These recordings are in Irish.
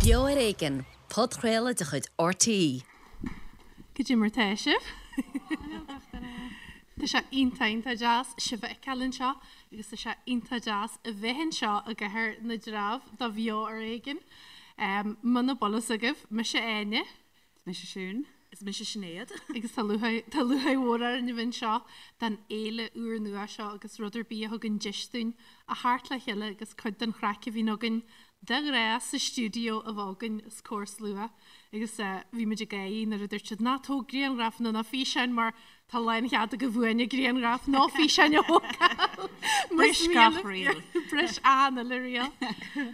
Beo ar Éigean, podchraoladh de chuid RTÉ. Cad é mar tá sibh? Tá sé iontach iontach deas sibh a fheiceáil anseo agus tá sé iontach deas a bheith anseo i gCathair na dTreabh do Bheo ar Éigean. Muna bhfuil fhios agaibh, mise Áine. Is mise Siún. Is mise Sinéad. Agus tá lúcháir tá lúcháir mhór orainn a bheith anseo don fhéile úrnua seo agus rud ar bith a thugann deis dúinn a theacht le chéile agus cuid den chraic a bhíonn againn de ghnáth sa stiúideo a bheith againn os comhair slua. Agus bhí muid ag gáirí nuair a dúirt siad ná tóg grianghrafanna ná físeáin mar tá lánchead agaibh uainne grianghraf nó físeáin a thógáil. Bris gach riail. Bris an uile riail.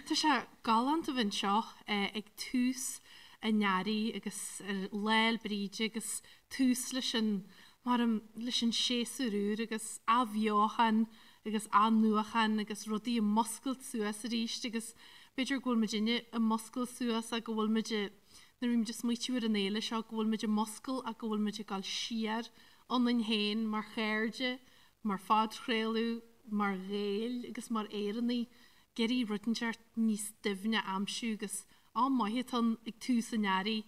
Tá sé galánta a bheith anseo ag tús an earraigh agus ar Lá 'le Bríde agus tús leis an, mar leis an séasúr úr agus athbheochan agus athnuachan agus rudaí ag muscailt suas arís agus b'fhéidir go bhfuil muidinne ag muscailt suas ach go bhfuil muid nuair a bhí muid ag smaoitiú ar an fhéile seo go bhfuil muid ag muscailt ach go bhfuil muid ag dul siar ionainn féin mar chairde, mar phodchraoladh, mar Ghaeil agus mar Éireannaigh ag iarraidh rud inteacht níos doimhne a aimsiú agus Am maith atá ann ag tús an earraigh,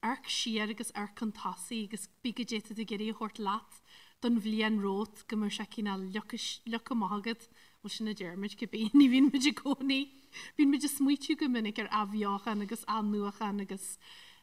amharc siar agus amharc chun tosaigh agus bí goidé tá tú ag iarraidh a thabhairt leat don bhliain romhat go mbeadh sé cineál leagtha amach agat, bhuel sin a deir muid cibé, ní bhíonn muid i gcónaí, bíonn muid ag smaoitiú go minic ar athbheochan agus athnuachan agus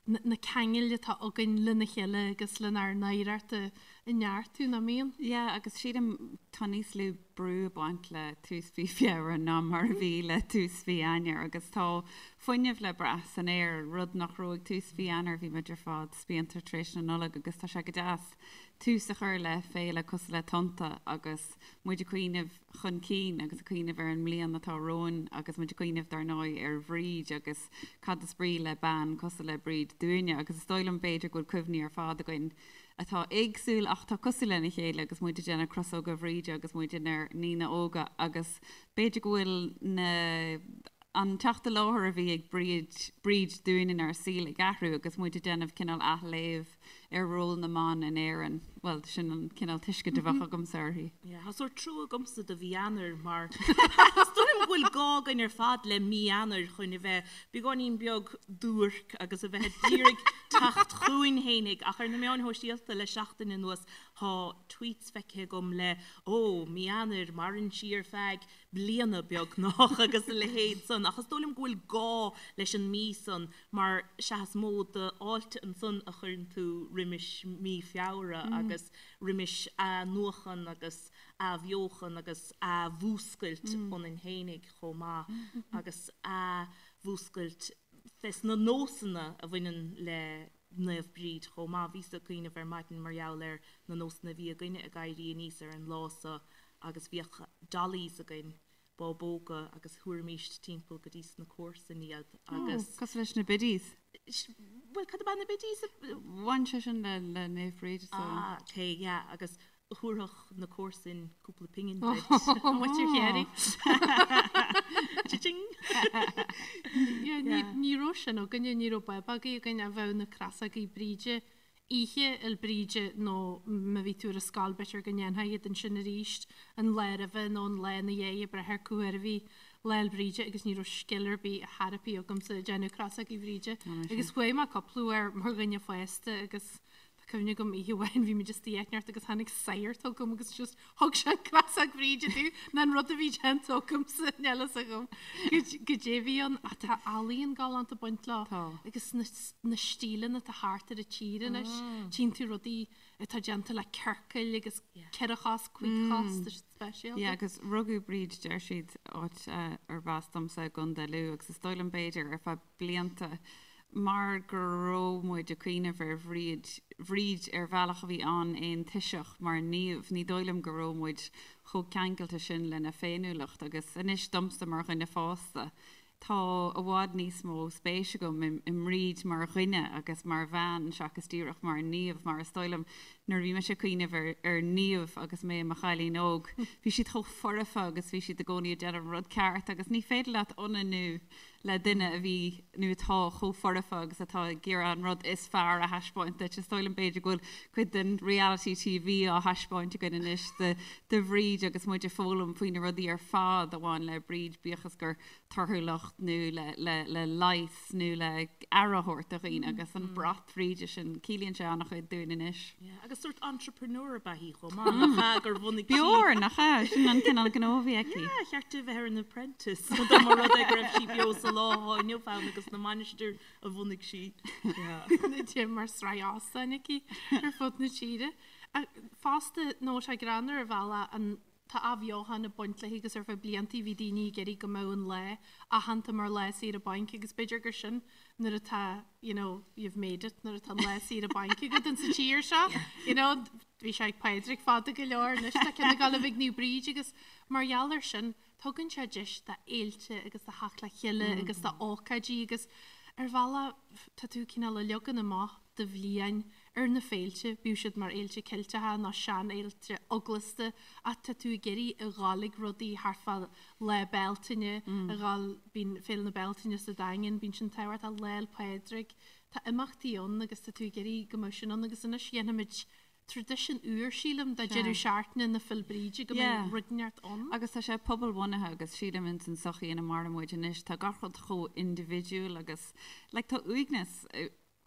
na ceangail atá againn lena chéile agus lenár n-oidhreacht a neartú, nach mbíonn? Yeah, agus sílim tá níos lú brú ag baint le tús mhí Feabhra ná mar a bhí le tús mhí Eanáir agus tá fuinneamh le brath san aer, rud nach raibh ag tús mhí Eanáir, bhí muid ar fad spíonta tar éis na Nollag agus tá sé go deas tús a chur le féile cosúil le Tonnta agus muid ag cuimhneamh chun cinn agus ag cuimhneamh ar an mbliain atá romhainn agus muid ag cuimhneamh dar ndóigh ar Bhríd agus cad is brí le bean cosúil le Bríd dúinne agus is dóigh liom b'fhéidir go bhfuil cuimhní ar fad againn atá éagsúil ach atá cosúil lena chéile agus muid ag déanamh crosóga Bhríde agus muid inár ndaoine óga agus b'fhéidir go bhfuil na an teacht i láthair a bhí ag Bríd Bríd dúinn inár saol ag athrú agus muid ag déanamh cineál athléamh ar ról na mban in Éirinn. Bhuel, sin an cineál tuiscint a bheadh agamsa uirthi. Yeah, tá sórt trua agamsa do mhí Eanáir mar is dóigh liom go bhfuil gá againn ar fad le mí Eanáir chun a bheith beagáinín beag duairc agus a bheith ag iarraidh teacht chugainn fhéinig ach ar na meáin shóisialta le seachtain anuas tá tweets feicthe agam le ó, mí Eanáir, maireann sí ar feadh bliana beagnach agus a leithéid san ach is dóigh liom go bhfuil gá leis an mí san mar sea is mó d'fháilte ansan a chuireann tú roimis mí Feabhra agus roimis athnuachan agus athbheochan agus athmhúscailt ionainn fhéinig chomh maith agus athmhúscailt fes na nósanna a bhaineann le Naomh Bríd chomh maith. Bhíos ag cuimhneamh ar maidin mar gheall ar na nósanna a bhí againne ag éirí aníos ar an lá so agus bhíodh dollies againn, bábóga, agus thabharfaimíst timpeall go dtí sna comharsain iad agus. Ó, cosúil leis na biddies. Bhuel, cad ab ea na biddies? Bhain sé sin le Naomh Bríd so. Ah, ok, yeah, agus thabharfadh na comharsain cúpla pingin duit. Muintir Chiarraí. Cha-ching! Ní raibh sin againne, ní raibh bábógaí againn ach bheadh na crosógaí Bríde oíche Fhéil Bríde nó má bhí tú ar an scoil b'fhéidir go ndéanfá iad ansin arís an lá roimhe nó an lá ina dhiaidh ag brath ar cá huair a bhí Lá Fhéil Bríde agus ní raibh scil ar bith ar chor ar bith agamsa ag déanamh crosógaí Bhríde. Agus chuaigh mé cúpla uair mar dhuine fásta agus Tá cuimhne agam oíche amháin bhí muid istigh áit inteacht agus tháinig sagart chugam agus just thug sé an crosóg Bhríde domh ná an rud a bhí déanta agamsa níl fhios agam goidé a bhí ann ach tá ealaíon galánta ag baint leo Tá. agus na na stíleanna atá thart ar an tír anois tchíonn tú rudaí atá déanta le ciorcail agus ceithre chos cúig chos tá siad speisialta. Yeah, agus rugadh Bríd deir siad áit arb as domsa i gContae Lú agus is dóigh liom b'fhéidir ar feadh blianta mar go raibh muid ag cuimhneamh ar Bhríd, Bhríd ar bhealach a bhí an-aontoiseach mar naomh, ní dóigh liom go raibh muid chomh ceangailte sin lena féiniúlacht agus anois domsa mar dhuine fásta, tá i bhfad níos mó spéis agam i mBríd mar dhuine agus mar bhean seachas díreach mar naomh mar is dóigh liom. Nuair a bhí mise ag cuimhneamh ar ar naoimh agus mé i mo chailín óg, bhí siad chomh foirfe agus bhí siad i gcónaí ag déanamh an rud ceart agus ní féidir leat ionannú le duine a bhí nó atá chomh foirfe agus atá ag iarraidh an rud is fearr a thaispeáint duit. Is dóigh liom b'fhéidir go bhfuil cuid den reality TV á thaispeáint againn anois de de Bhríd agus muid ag foghlaim faoi na rudaí ar fad a bhain le Bríd, bíodh is gur torthúlacht nó le le leigheas nó le aire a thabhairt do dhaoine agus an brat Bhríde sin, ciallaíonn sé an-chuid dúinn anois. Yeah, agus sórt entrepreneur ab ea í chomh maith, nach ea, gur bhunaigh sí. B'fhearr, nach ea? Sin an cineál gnó a bhí aici. Yeah, cheart di bheith ar an Apprentice, dá mba rud é go raibh sí beo sa lá atá inniu ann agus na mainistir a bhunaigh sí. Yeah. Déanamh mar sraith óstáin aici ar fud na tíre. Fosta, nó sé greannmhar ar bhealach an Tá athbheochan ag baint léi agus ar feadh blianta bhí daoine ag iarraidh go mbeadh an lá aitheanta mar lá saoire bainc agus b'fhéidir gur sin nuair atá you know you've made it nuair atá an lá saoire bainc agat in sa tír seo you know bhí sé ag Pádraig fada go leor anois tá ceann ag gabháil a bheith ag Naomh Bríd agus mar gheall ar sin tugann sé deis do fhéilte agus do theacht le chéile agus do ócáidí agus ar bhealach tá tú cineál ag leagan amach do bhliain ar na féilte, bíodh siad mar fhéilte Ceilteacha nó seanfhéilte eaglasta, ach tá tú ag iarraidh a ghabháil ag rudaí thart fá Lá Bealtaine, a ghabháil, bíonn Féile na Bealtaine sa Daingean, bíonn sin tábhachtach, Lá 'le Pádraig, tá imeachtaí ann agus tá tú ag iarraidh go mbeadh sin ann agus anois dhéanfaimid traidisiún úr, sílim, de deireadh seachtaine na Féile Bríde go mbeidh rud inteacht ann. Agus tá sé pobalbhunaithe agus sílim ins an sochaí ina maireann muid anois, tá gach rud chomh indibhidiúil agus like tá uaigneas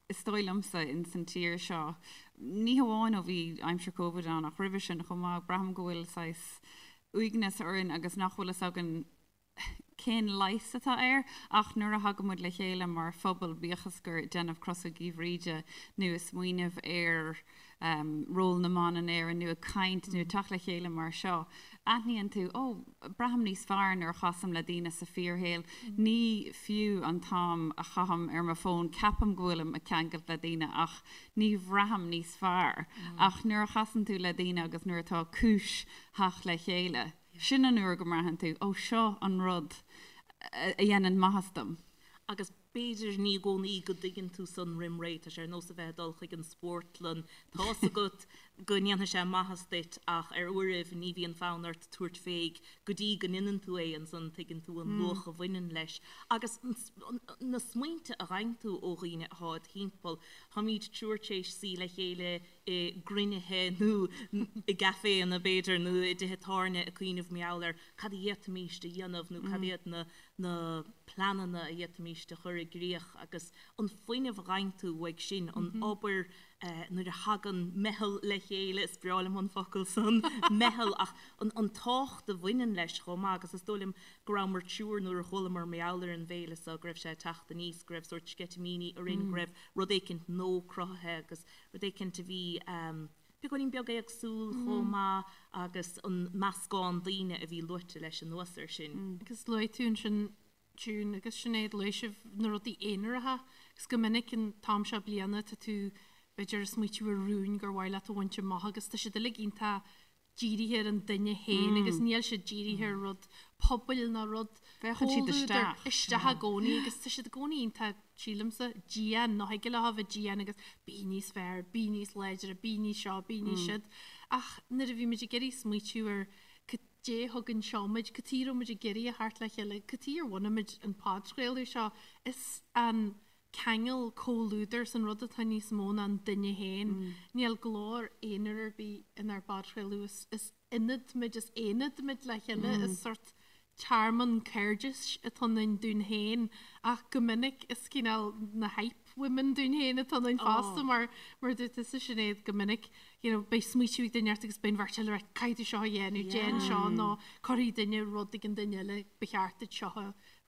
is dóigh liomsa, ins an tír seo, ní hamháin ó bhí aimsir Covid ann ach roimhe sin chomh maith, braithim go bhfuil saghas uaigneas orainn agus nach bhfuil fhios againn cén leigheas atá air ach nuair a thagann muid le chéile mar phobal, bíodh is gur ag déanamh crosógaí Bhríde nó ag smaoineamh ar ról na mban in Éirinn nó ag caint nó ag teacht le chéile mar seo, aithníonn tú, ó, braithim níos fearr nuair a chasaim le daoine sa fíorshaol. Ní fiú an t-am a chaithim ar mo fón, ceapaim go bhfuilim ag ceangailt le daoine ach ní bhraithim níos fearr. Ach nuair a chasann tú le daoine agus nuair atá cúis theacht le chéile, sin an uair go mbraitheann tú, ó, seo an rud a dhéanann maitheas dom. Agus B'fhéidir ní i gcónaí go dtuigeann tú san roim ré, tá sé ar nós a bheith ag dul chuig an spórtlann, tá's agat go ndéanfaidh sé maitheas duit ach ar uairibh ní bhíonn fonn ort tabhairt fé go dtí go ndéanann tú é, ansan tuigeann tú an luach a bhaineann leis. Agus na smaointe a fhaigheann tú ó dhaoine atá id thimpeall, táimid triúr tar éis suí le chéile i gcruinnithe nó i gcaiféanna b'fhéidir nó i dtithe tábhairne ag cuimhneamh mar gheall ar cad a d'fhéadfaimis a dhéanamh nó cad iad na na pleananna a d'fhéadfaimis a chur i gcrích agus an fuinneamh a fhaigheann tú uaidh sin, an obair nuair a thagann meitheal le chéile, is breá liom an focal san, meitheal, ach an tábhacht a bhaineann leis chomh maith agus is dóigh liom go rabhamar triúr nuair a chualamar mar gheall ar an bhféile seo, go raibh sé ag teacht aníos, go raibh sórt sceitimíní orainn, go raibh rud éicint nua cruthaithe agus rud éicint a bhí beagáinín beag éagsúil chomh maith agus an meascán daoine a bhí luaite leis anuas air sin. Agus luaigh tú ansin June agus Sinéad, luaigh sibh na rudaí aonaracha agus go minic an t-am seo bliana tá tú b'fhéidir ag smaoitiú ar rúin gur mhaith leat a bhaint amach agus tá siad uilig iontach dírithe ar an duine féin agus níl siad dírithe ar rud pobail ná rud Féachann siad comhluadair isteach. isteach i gcónaí agus tá siad i gcónaí iontach sílimse, dian, nó thig leo a bheith dian agus bí níos fearr, bí níos láidre, bí níos seo, bí níos siúd. Ach nuair a bhí muid ag iarraidh smaoitiú ar cad é thug anseo muid, cad chuige a raibh muid ag iarraidh a theacht le chéile, cad chuige ar bhunaigh muid an podchraoladh seo, is an ceangal comhluadair san rud atá níos mó ná an duine féin. Níl glór aonair ar bith inár bpodchraoladh, is, is ionad muid, is aonad muid le chéile, is sórt tearmann cairdis atá ionainn dúinn féin ach go minic is cineál na hype women dúinn féin atá ionainn fosta mar mar a dúirt tusa Sinéad go minic you know beidh smaoitiú ag duine ort agus beidh an bheirt eile ag rá caithfidh tú seo a dhéanamh, déan seo nó cuirfidh duine rud ag an duine eile ba cheart duit seo a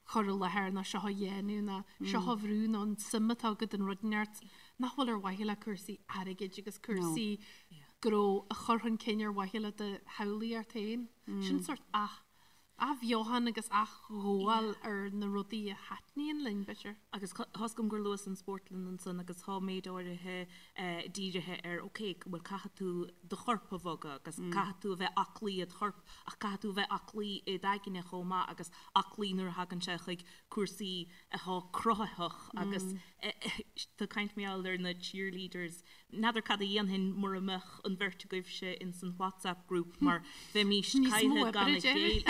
chur i láthair nó seo a dhéanamh nó seo a bhrú nó an suim atá agat in rud inteacht nach bhfuil ar mhaithe le cúrsaí airgid agus cúrsaí gnó a chur chun cinn ar mhaithe le do shamhlaíocht féin. Sin sórt ath. Athbheochan agus athghabháil ar na rudaí a thaitníonn linn, b'fhéidir. Agus tá 'fhios agam gur luas an spórtlann ansan agus tá méid áirithe dírithe ar ok, bhuel caithfidh tú do chorp a bhogadh agus caithfidh tú a bheith aclaí id chorp ach caithfidh tú a bheith aclaí id aigne chomh maith agus aclaí nuair a thagann sé chuig cúrsaí atá cruthaitheach agus tá caint mar gheall ar na cheerleaders N'fheadar cad a dhéanfainn mura mbeadh an bheirt agaibhse ins an WhatsApp group mar bheimís caillthe gan a chéile.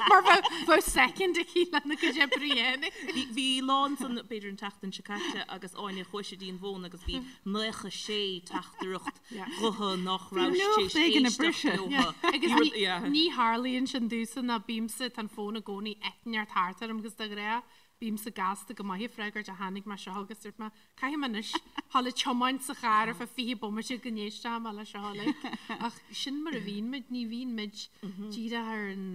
Mar bheadh second aici lena cuid oibre a dhéanamh. Bhí lá ansan, b'fhéidir an tseachtain seo caite, agus Áine chuaigh sí dtí an bhfón agus bhí 96 teachtaireacht ghutha nach raibh sí tar éis éisteacht leo. Agus ní tharlaíonn sin domhsa ná bímse, tá an fón i gcónaí eitneart thart orm agus de ghnáth bímse gasta go maith ag freagairt ach tháinig mé seo agus dúirt mé, caithfidh mé anois dhul ag tiomáint sa charr ar feadh 20 bomaite go n-éistfidh mé le seo uilig. Ach sin mar a bhíonn muid, ní bhíonn muid díreach ar an,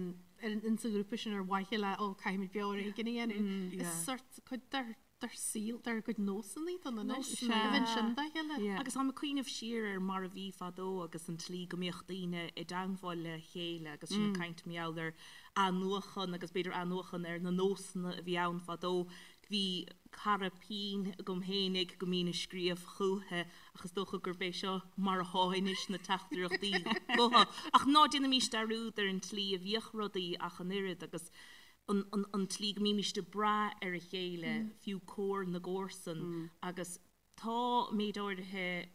ar an, insa ghrúpa sin ar mhaithe le, ó, caithfidh muid beo ar éigean a dhéanamh. Is sort cuid dár, dár saol, dár gcuid nósanna atá ann anois, a bheith ansin dá chéile. Agus táim ag cuimhneamh siar ar mar a bhí fadó agus an tslí go mbíodh daoine i dteangmháil le chéile agus sinn ag caint mar gheall ar athnuachan agus b'fhéidir athnuachan ar na nósanna a bhí ann fadó. Bhí cara pinn agam fhéinig go mbínn ag scríobh chúiche ach is dócha gurb é seo mar athá anois na teachtaireachtaí gutha. Ach ná déanaimís dearúd ar an tslí a bhíodh rudaí ach an oiread agus an an tslí go mbímíst ag brath ar a chéile, fiú comhar na gcomharsan agus tá méid áirithe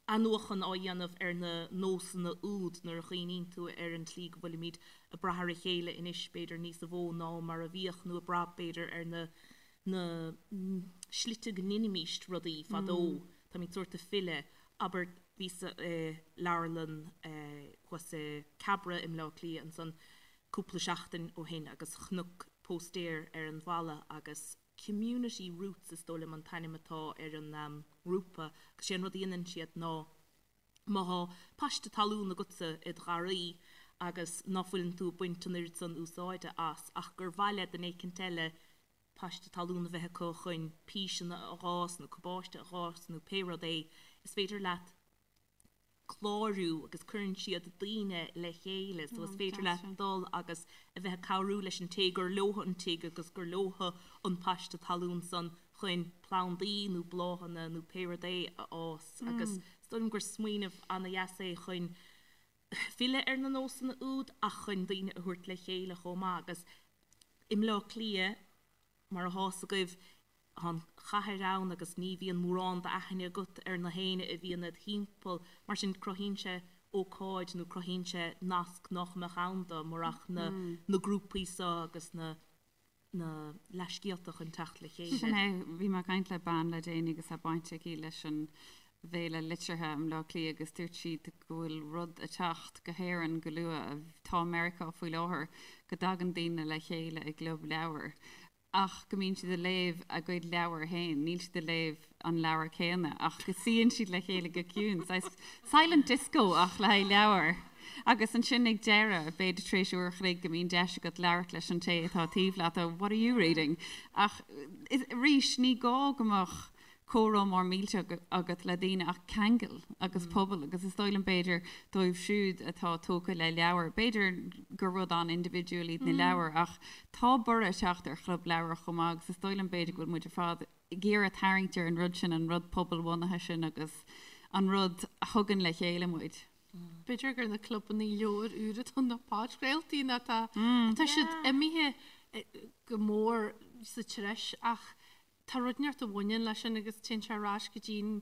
athnuachan á dhéanamh ar na nósanna úd nuair a chuimhníonn tú ar an tslí go bhfuilimid ag brath ar a chéile anois, b'fhéidir níos mó ná mar a bhíodh, nó ag brath, b'fhéidir, ar na na slite go ndeinimíst rudaí fadó. Táimid sórt ag filleadh. Abair, bhíos-sa i leabharlann thuas i Cabra i mBleá Cliath ansan cúpla seachtain ó shin agus chonac póstaer ar an bhalla agus Community Roots is dóigh liom an t-ainm atá ar an ngrúpa agus sé an rud a dhéanann siad ná má thá paiste talún agatsa id gharraí agus ná fuileann tú ag baint an oiread san úsáide as ach gur mhaith le duine éicint eile paiste talún a bheith acu chun píseanna a dh'fhás nó cabáiste a dh'fhás nó pé rud é is féidir leat clárú agus cuireann siad daoine le chéile so is féidir leat dul agus a bheith ag cabhrú leis an té gur leotha an tigh agus gur leotha an paiste talún san chun plandaí nó bláthanna nó pé rud é a fhás agus is dóigh liom gur smaoineamh ana-dheas é chun filleadh ar na nósanna úd ach chun daoine a thabhairt le chéile chomh maith agus i mBleá Cliath Mar atá 'fhios agaibh, tá an chathair ann agus ní bhíonn mórán d'aithne agat ar na héinne a bhíonn id thimpeall. Mar sin, cruthaíonn sé ócáid nó cruthaíonn sé nasc nach mbeadh ann dá murach na na grúpaí seo agus na na leathscéalta chun teacht le chéile. Sin é. Bhí mé ag caint le bean le déanaí agus tá baint aici leis an bhFéile Liteartha i mBleá Cliath agus dúirt sí go bhfuil rud ag teacht go hÉirinn go luath, atá i Meiriceá faoi láthair, go dtagann daoine le chéile i gclub leabhar ach go mbíonn siad ag léamh a gcuid leabhar féin, níl siad ag léamh an leabhar céanna ach go suíonn siad le chéile go ciúin, saghas silent disco ach le haghaidh leabhar. Agus ansin ag deireadh, b'fhéidir tar éis uair a chloig, go mbíonn deis agat labhairt leis an té atá taobh leat, oh, what are you reading? Ach arís, ní gá go mbeadh comhrá mór millteach agat le daoine ach ceangal agus pobal agus is dóigh liom b'fhéidir dóibh siúd atá tógtha le leabhair, b'fhéidir gur rud an-indibhidiúil iad na leabhair ach tá borradh ag teacht ar chlub leabhar chomh maith agus is dóigh liom b'fhéidir go bhfuil muid ar fad ag iarraidh tarraingt ar an rud sin, an rud pobalbhunaithe sin agus an rud a thugann le chéile muid. B'fhéidir gur na clubanna leabhar úr atá na podchraoltaí nó tá tá siad imithe go mór sa treis ach Tá rud inteacht a bhaineann leis sin agus téann sé ar ais go dtí an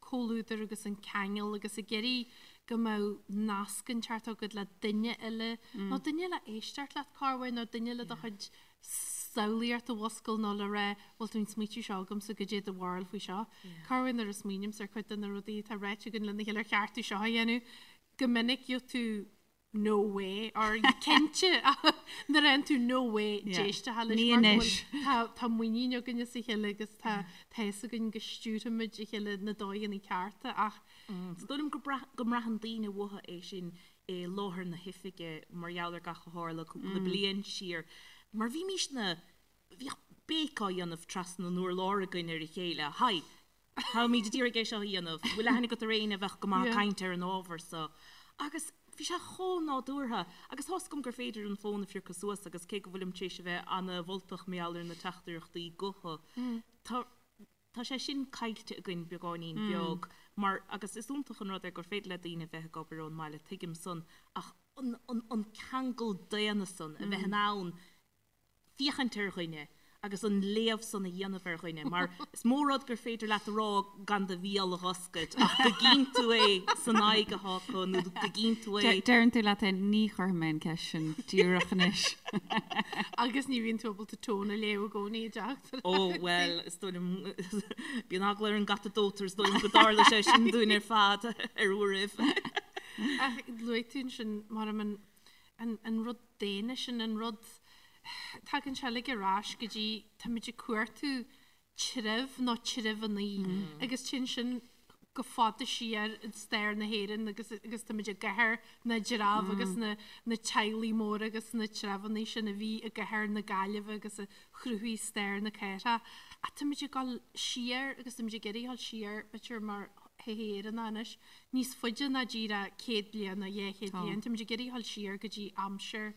comhluadar agus an ceangal agus ag iarraidh go mbeadh nasc inteacht agat le duine eile nó duine le éisteacht leat corruair nó duine le do chuid samhlaíocht a mhuscailt nó le rá bhfuil tú an smaoitiú seo agamsa goidé do bharúil faoi seo. Corruair nuair a smaoinímse ar chuid de na rudaí atá ráite againn lena chéile ar cheart tú seo a dhéanamh go minic gheobhaidh tú no way or cinnte nuair a fhaigheann tú no way d'éisteacht leis Ní mar go anois. bhfuil tá tá muinín againn as a chéile agus tá tá fhios againn go stiúrfaimid a chéile na dóigheanna cearta ach Is dóigh liom go brath go mbraitheann daoine uathu é sin i láthair na hoifige mar gheall ar gach a tharla cúpla bliain siar mar bhímís na bhíodh béic á dhéanamh trasna an urláir againn ar a chéile Hi Táimid ag iarraidh é seo a dhéanamh. Bhfuil aithne agat ar éinne a bheadh go maith ag caint ar an ábhar so? Agus. Bhí sé chomh nádúrtha agus tá's agam gur féidir an fón a phiocadh suas agus cé go bhfuilim tar éis a bheith ana-mholtach mar gheall ar na teachtaireachtaí gutha, tá tá sé sin caillte againn beagáinín beag mar agus is iontach an rud é gur féidir le daoine a bheith ag obair ón mbaile, tuigim san, ach an an an ceangal daonna san, a bheith in ann féachaint ar dhuine agus an léamh san a dhéanamh ar dhuine, mar is mó rud gur féidir leat a rá gan do bhéal a dh'oscailt ach go gcíonn tú é san aghaidh atá acu nó go gcíonn tú é. Deireann tú leat féin, ní chuirfidh mé an ceist sin díreach anois. Agus ní bhíonn tú ábalta tone a léamh i gcónaí i dteachtaireacht. Ó, bhuel, is dóigh liom, bíonn eagla ar an gcat a dóitear, is dóigh liom go dtarla sé sin dúinn ar fad ar uairibh. Ach luaigh tú ansin, mar an an rud daonna sin, an rud, tagann sé uilig ar ais go dtí, táimid ag cuartú treibh nó treibheannaí agus téann sin go fada siar i stair na hÉireann agus agus táimid i gCathair na dTreabh agus na na teaghlaigh móra agus na treibheannaí sin a bhí i gCathair na Gaillimhe agus a chruthaigh stair na cathrach. Ach táimid ag dul siar agus táimid ag iarraidh dul siar b'fhéidir mar shochaí Éireannach anois níos faide ná díreach 100 bliain nó 200 bliain. Táimid ag iarraidh dul siar go dtí aimsir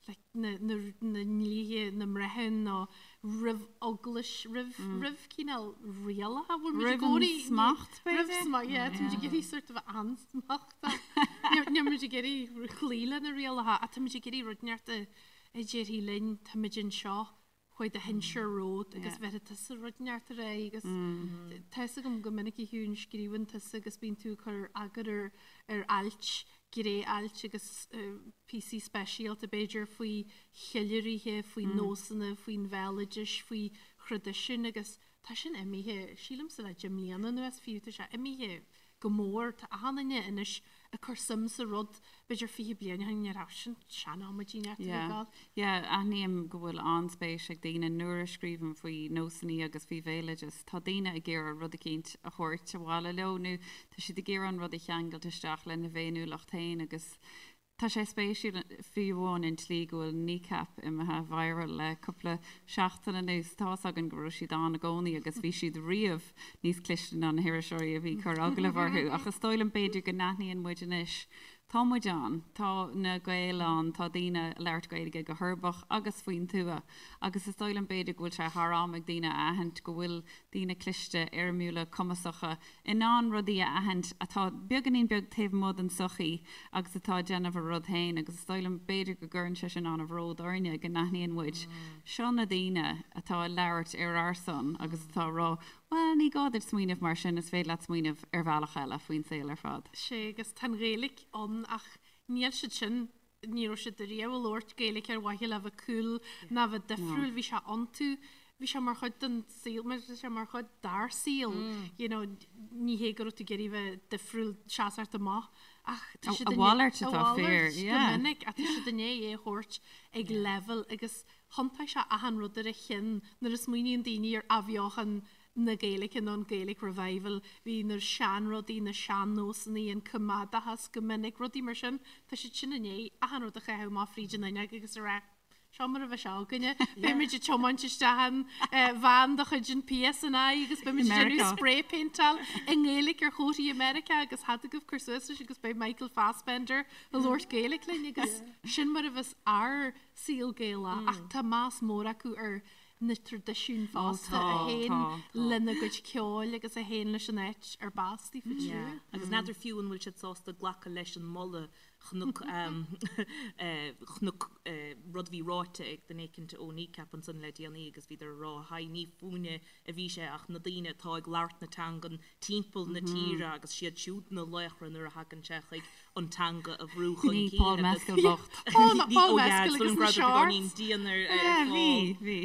like na na na ndlíthe, na mbreithiún nó roimh eaglais, roimh roimh cineál rialacha bhfuil muid i Roimh an gcónaí smacht, roimh b'fhéidir? smacht, yeah, táimid ag iarraidh sort of ansmachtach. Níl muid ag iarraidh cloí le na rialacha ach táimid ag iarraidh rud inteacht a a déarfaidh linn táimid anseo chuaigh do shinsir romhat agus bheirfidh tusa rud inteacht ar aghaidh agus tá fhios agam go minic a Shiún scríobhann tusa agus bíonn tú ag cur eagar ar ar ailt, gné-ailt agus píosaí speisialta b'fhéidir faoi cheiliúraithe, faoi nósanna, faoin bhéaloidis, faoi thraidisiúin agus tá sin imithe, sílimse le 10 mbliana anuas fiú, tá sé imithe go mór. Tá achan duine anois ag cur suim sa rud, b'fhéidir 20 bliain ó shin ní raibh sin sean-amaidí neart a bheith ag. Yeah, aithním go bhfuil an-spéis ag daoine nuair a scríobhaim faoi nósanna agus faoi bhéaloideas. Tá daoine ag iarraidh rud eicínt a thabhairt abhaile leo nó tá siad ag iarraidh an rud a cheangailt isteach lena bhféiniúlacht féin agus Tá sé spéisiúil, fiú amháin an tslí go bhfuil Kneecap imithe viral le cúpla seachtain anuas. Tá's againn go raibh siad ann i gcónaí agus bhí siad riamh níos cliste ná na hiriseoirí a bhí ag cur agallamh orthu ach is dóigh liom b'fhéidir go n-aithníonn muid anois, tá muid ann, tá na Gaeil ann, tá daoine ag labhairt Gaeilge go huirbeach agus faoin tuath agus is dóigh liom b'fhéidir go bhfuil sé thar am ag daoine a aithint go bhfuil daoine cliste, éirimiúla, cumasacha, in ann rudaí a aithint atá beagáinín beag taobh amuigh den tsochaí agus atá ag déanamh a rud féin agus is dóigh liom b'fhéidir go gcuireann sé sin an-bhród orainne go n-aithníonn muid seo na daoine atá ag labhairt ar ár son agus atá ag rá bhuel ní gá duit smaoineamh mar sin is féidir leat smaoineamh ar bhealach eile faoin saol ar fad. Sea agus tá an Ghaeilge ann ach níl siad sin ní raibh siad riamh ag labhairt Gaeilge ar mhaithe le bheith cool ná bheith difriúil, bhí sé iontu, bhí sé mar chuid den saol, mar bhí sé mar chuid dár saol, you know, ní hé go raibh tú ag iarraidh bheith difriúil seasamh amach ach tá siad A mhalairt atá a fíor, mhalairt go yeah. minic ach tá siad i ndiaidh é a thabhairt ag leibhéal agus thiontaigh sé achan rud ar a chionn nuair a smaoiníonn daoine ar athbheochan na Gaeilge nó an Gaelic Revival, bhí na seanrudaí, na sean-nósanna, an coimeádachas go minic, rudaí mar sin, tá siad sin i ndiaidh achan rud a chaitheamh amach fríd an fhuinneog agus a rá, seo mar a bheidh sé againne, beimid ag tiomáint isteach in veain de chuid an PSNI agus beimid ag déanamh spray paintáil i nGaeilge ar chomharthaí i Meiriceá agus thig agaibh cur suas leis agus beidh Michael Fassbender ag labhairt Gaeilge linn agus sin mar a bheas ár saol Gaelach ach tá meas mór acu ar na traidisiúin fosta a théann lena gcuid ceoil agus a théann leis an áit ar b'as daofa siúd. Agus n'fheadar fiú an bhfuil siad sásta glacadh leis an moladh chonac chonac rud a bhí ráite ag duine éicint ó Kneecap ansan le déanaí agus bhíodar ag rá haigh ní fúinne a bhí sé ach na daoine atá ag labhairt na teangan timpeall na tíre agus siad siúd na laochra nuair a thagann sé chuig an teanga a bhrú chun Ní cinn Paul agus Mescal bocht. Paul Ní Paul ó yeah Mescal is dóigh agus liom na go raibh beagáinín shorts. dian ar ar Yeah, Paul. bhí, bhí.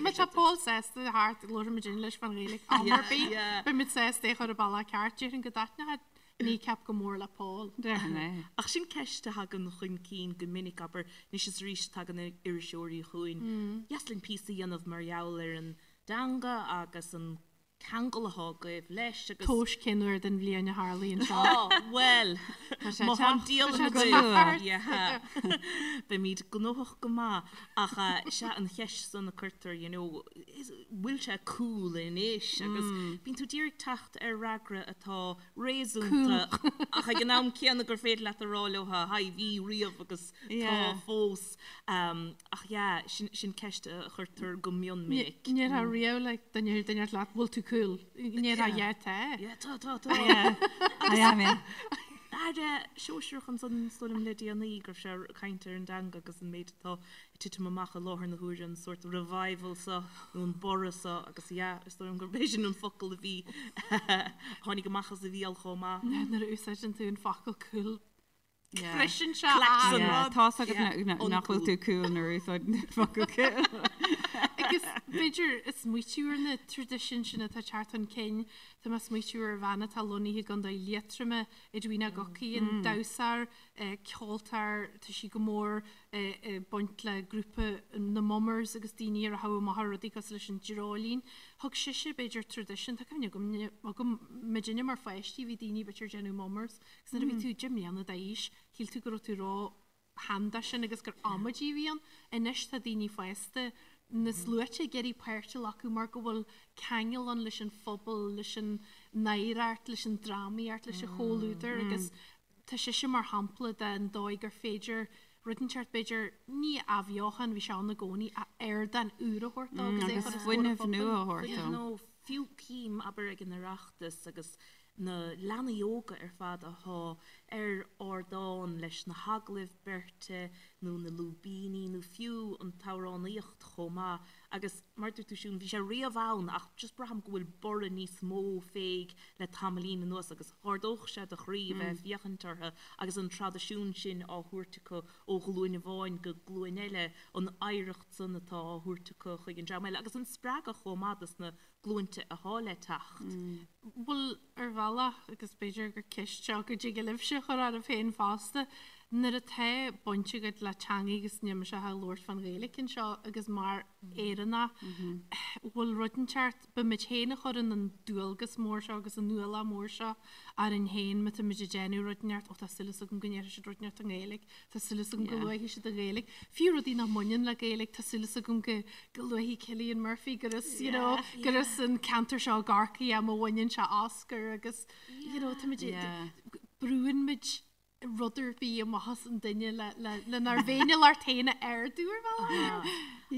Má tá Paul sásta thart labharfaimid leis fán Ghaeilge am ar Yeah, bith. yeah. Beimid sásta é a chur ar bealach ceart. Déarfainn go dtaitneoidh Kneecap go mór le Paul. Déarfainn é. Ach sin ceist a thagann chun cinn go minic, abair, anois is arís tagann iriseoirí chugainn, dheas linn píosa a dhéanamh mar gheall ar an dteanga agus an. ceangal atá agaibh leis agus. Tomhais cén uair den bhliain a tharlaíonn seo. Á, bhuel, Tá sé má ag tá an teacht, tá dialann sé go agaibh, luath. yeah, beimid gnóthach go maith. Ach sea, an cheist san a cuirtear, you know, is, bhfuil sé cool anois? Agus bíonn tú d'iarraidh teacht ar fhreagra atá réasúnta ach ag an am céanna gur féidir leat a rá leo, haigh, bhí riamh agus tá fós. Ach yeah, sin, sin ceist a chuirtear go mion minic. Ní déarfá riamh le duine duine leat bhfuil tú cool. Ní déarfá yeah tá. Yeah, tá, tá, tá. Yeah, I am, yeah. Aire sóisearach ansan is dóigh liom le déanaí go raibh sé ag caint ar an dteanga agus an méid atá ag titim amach i láthair na huaire, an sórt revival seo nó an borradh seo agus yeah, is dóigh liom gurb é sin an focal a bhí, tháinig amach as a bhéal chomh maith. Nuair a úsáideann tú an focal cool Yeah. Briseann sé Collapse an an rud. Tá's agat Yeah, nach bhfuil uncool. tú cool nuair a úsáideann tú an focal cool. Agus b'fhéidir ag smaoitiú ar na traidisiúin sin atá ag teacht chun cinn, tá mé ag smaoitiú ar bhean atá lonnaithe i gContae Liatroma, Edwina Guckian, an damhsóir, ceoltóir, tá sí go mór ag baint le grúpa na Mummers agus daoine a rachadh amach ar rudaí cosúil leis an Dreoilín. Thug sise, b'fhéidir, traidisiún, tá cuimhne agam, agam muidinne mar pháistí, bhí daoine b'fhéidir ag déanamh Mummers agus nuair a bhí tú 10 mbliana d'aois, shíl tú go raibh tú ró-shean dó sin agus gur amaidí a bhí ann. Anois tá daoine fásta na sluaite ag iarraidh páirt a ghlacadh mar go bhfuil ceangal ann leis an phobal, leis an oidhreacht, leis an drámaíocht, leis an chomhluadar agus Tá sise mar shampla den dóigh gur féidir rud inteacht, b'fhéidir, ní athbheochan, bhí sé ann i gcónaí, ach ardán úr a thabhairt dó agus é a chur os comhair an phobail. Agus fuinneamh nua a thabhairt dó. Nó fiú cím, abair, ag an Oireachtas agus na leanaí óga ar fad athá ar ardán leis na hagallaimh beirte nó na lúibíní nó fiú an t-amhránaíocht chomh maith Agus mar a dúirt tú Siún, bhí sé riamh ann ach just braithim go bhfuil borradh níos mó fé le tamaillín anuas agus dh'ardódh sé do chroí a bheith ag féachaint orthu agus an traidisiún sin á thabhairt acu ó ghlúin amháin go glúin eile, an oidhreacht san atá á thabhairt acu chuig an dream eile agus an spreagadh chomh maith dos na glúinte athá le teacht. Bhuel, ar bhealach, agus b'fhéidir gur ceist seo go dtig libhse a chur oraibh féin fosta, nuair atá baint agat le teangaidh agus níl mise ach ag labhairt fán Ghaeilge anseo agus mar Éireannach, bhfuil rud inteacht, bímid féin a chuireann an dualgas mór seo agus an ualach mór seo orainn féin má táimid ag déanamh rud inteacht, ó tá súil agam go ndéarfaidh siad rud inteacht i nGaeilge, Tá súil agam go luafaidh siad an Ghaeilge. Fiú rudaí nach mbaineann le Gaeilge, tá súil agam go go luafaidh Cillian Murphy gur as, you know, gur as an ceantar seo i gCorcaigh é má bhaineann sé Oscar agus, you know, táimid brúann muid rud ar bith amach as an duine le le lenár bhféiniúlacht féin a ardú ar bhealach.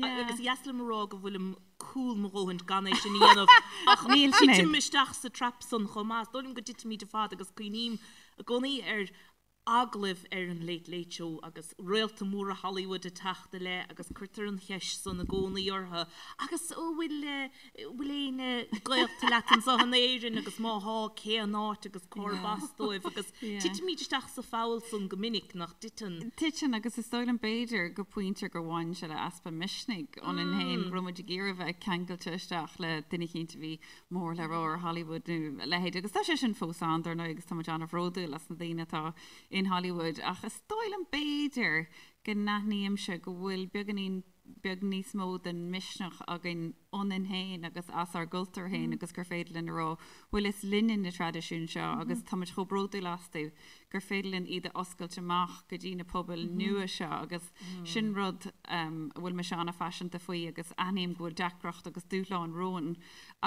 Agus is deas liom a rá go bhfuilim cool mo dhóthain gan é sin a dhéanamh ach Níl sin titim isteach sa trap san chomh maith. Is dóigh liom go dtitimid ar fad agus cuimhním i gcónaí ar agallaimh ar an Late Late Show agus réalta móra Hollywood ag teacht i leith agus cuirtear an cheist san i gcónaí orthu agus an bhfuil bhfuil éinne gaolta leat anseo in Éirinn agus má thá cén áit agus cárb as dóibh agus titimid isteach sa pholl san go minic, nach dtiteann? Titeann agus is dóigh liom b'fhéidir go pointe gur bhain sé le easpa misnigh ionainn féin go raibh muid ag iarraidh bheith ceangailte isteach le duine eicínt a bhí mór le rá ar Hollywood nó a leithéid agus tá sé sin fós ann dar ndóigh agus tá muid an-bhródúil as na daoine atá in Hollywood ach is dóigh liom b'fhéidir go n-aithnímse go bhfuil beagáinín beag níos mó den misneach againn ionainn féin agus as ár gcultúr féin agus gur féidir linn a rá bhuel is linne na traidisiúin seo agus tá muid chomh bródúil astu gur féidir linn iad a oscailt amach go dtí na pobail nua seo agus sin rud a bhfuil mise an-phaiseanta faoi agus aithním go bhfuil deacracht agus dúshláin romhainn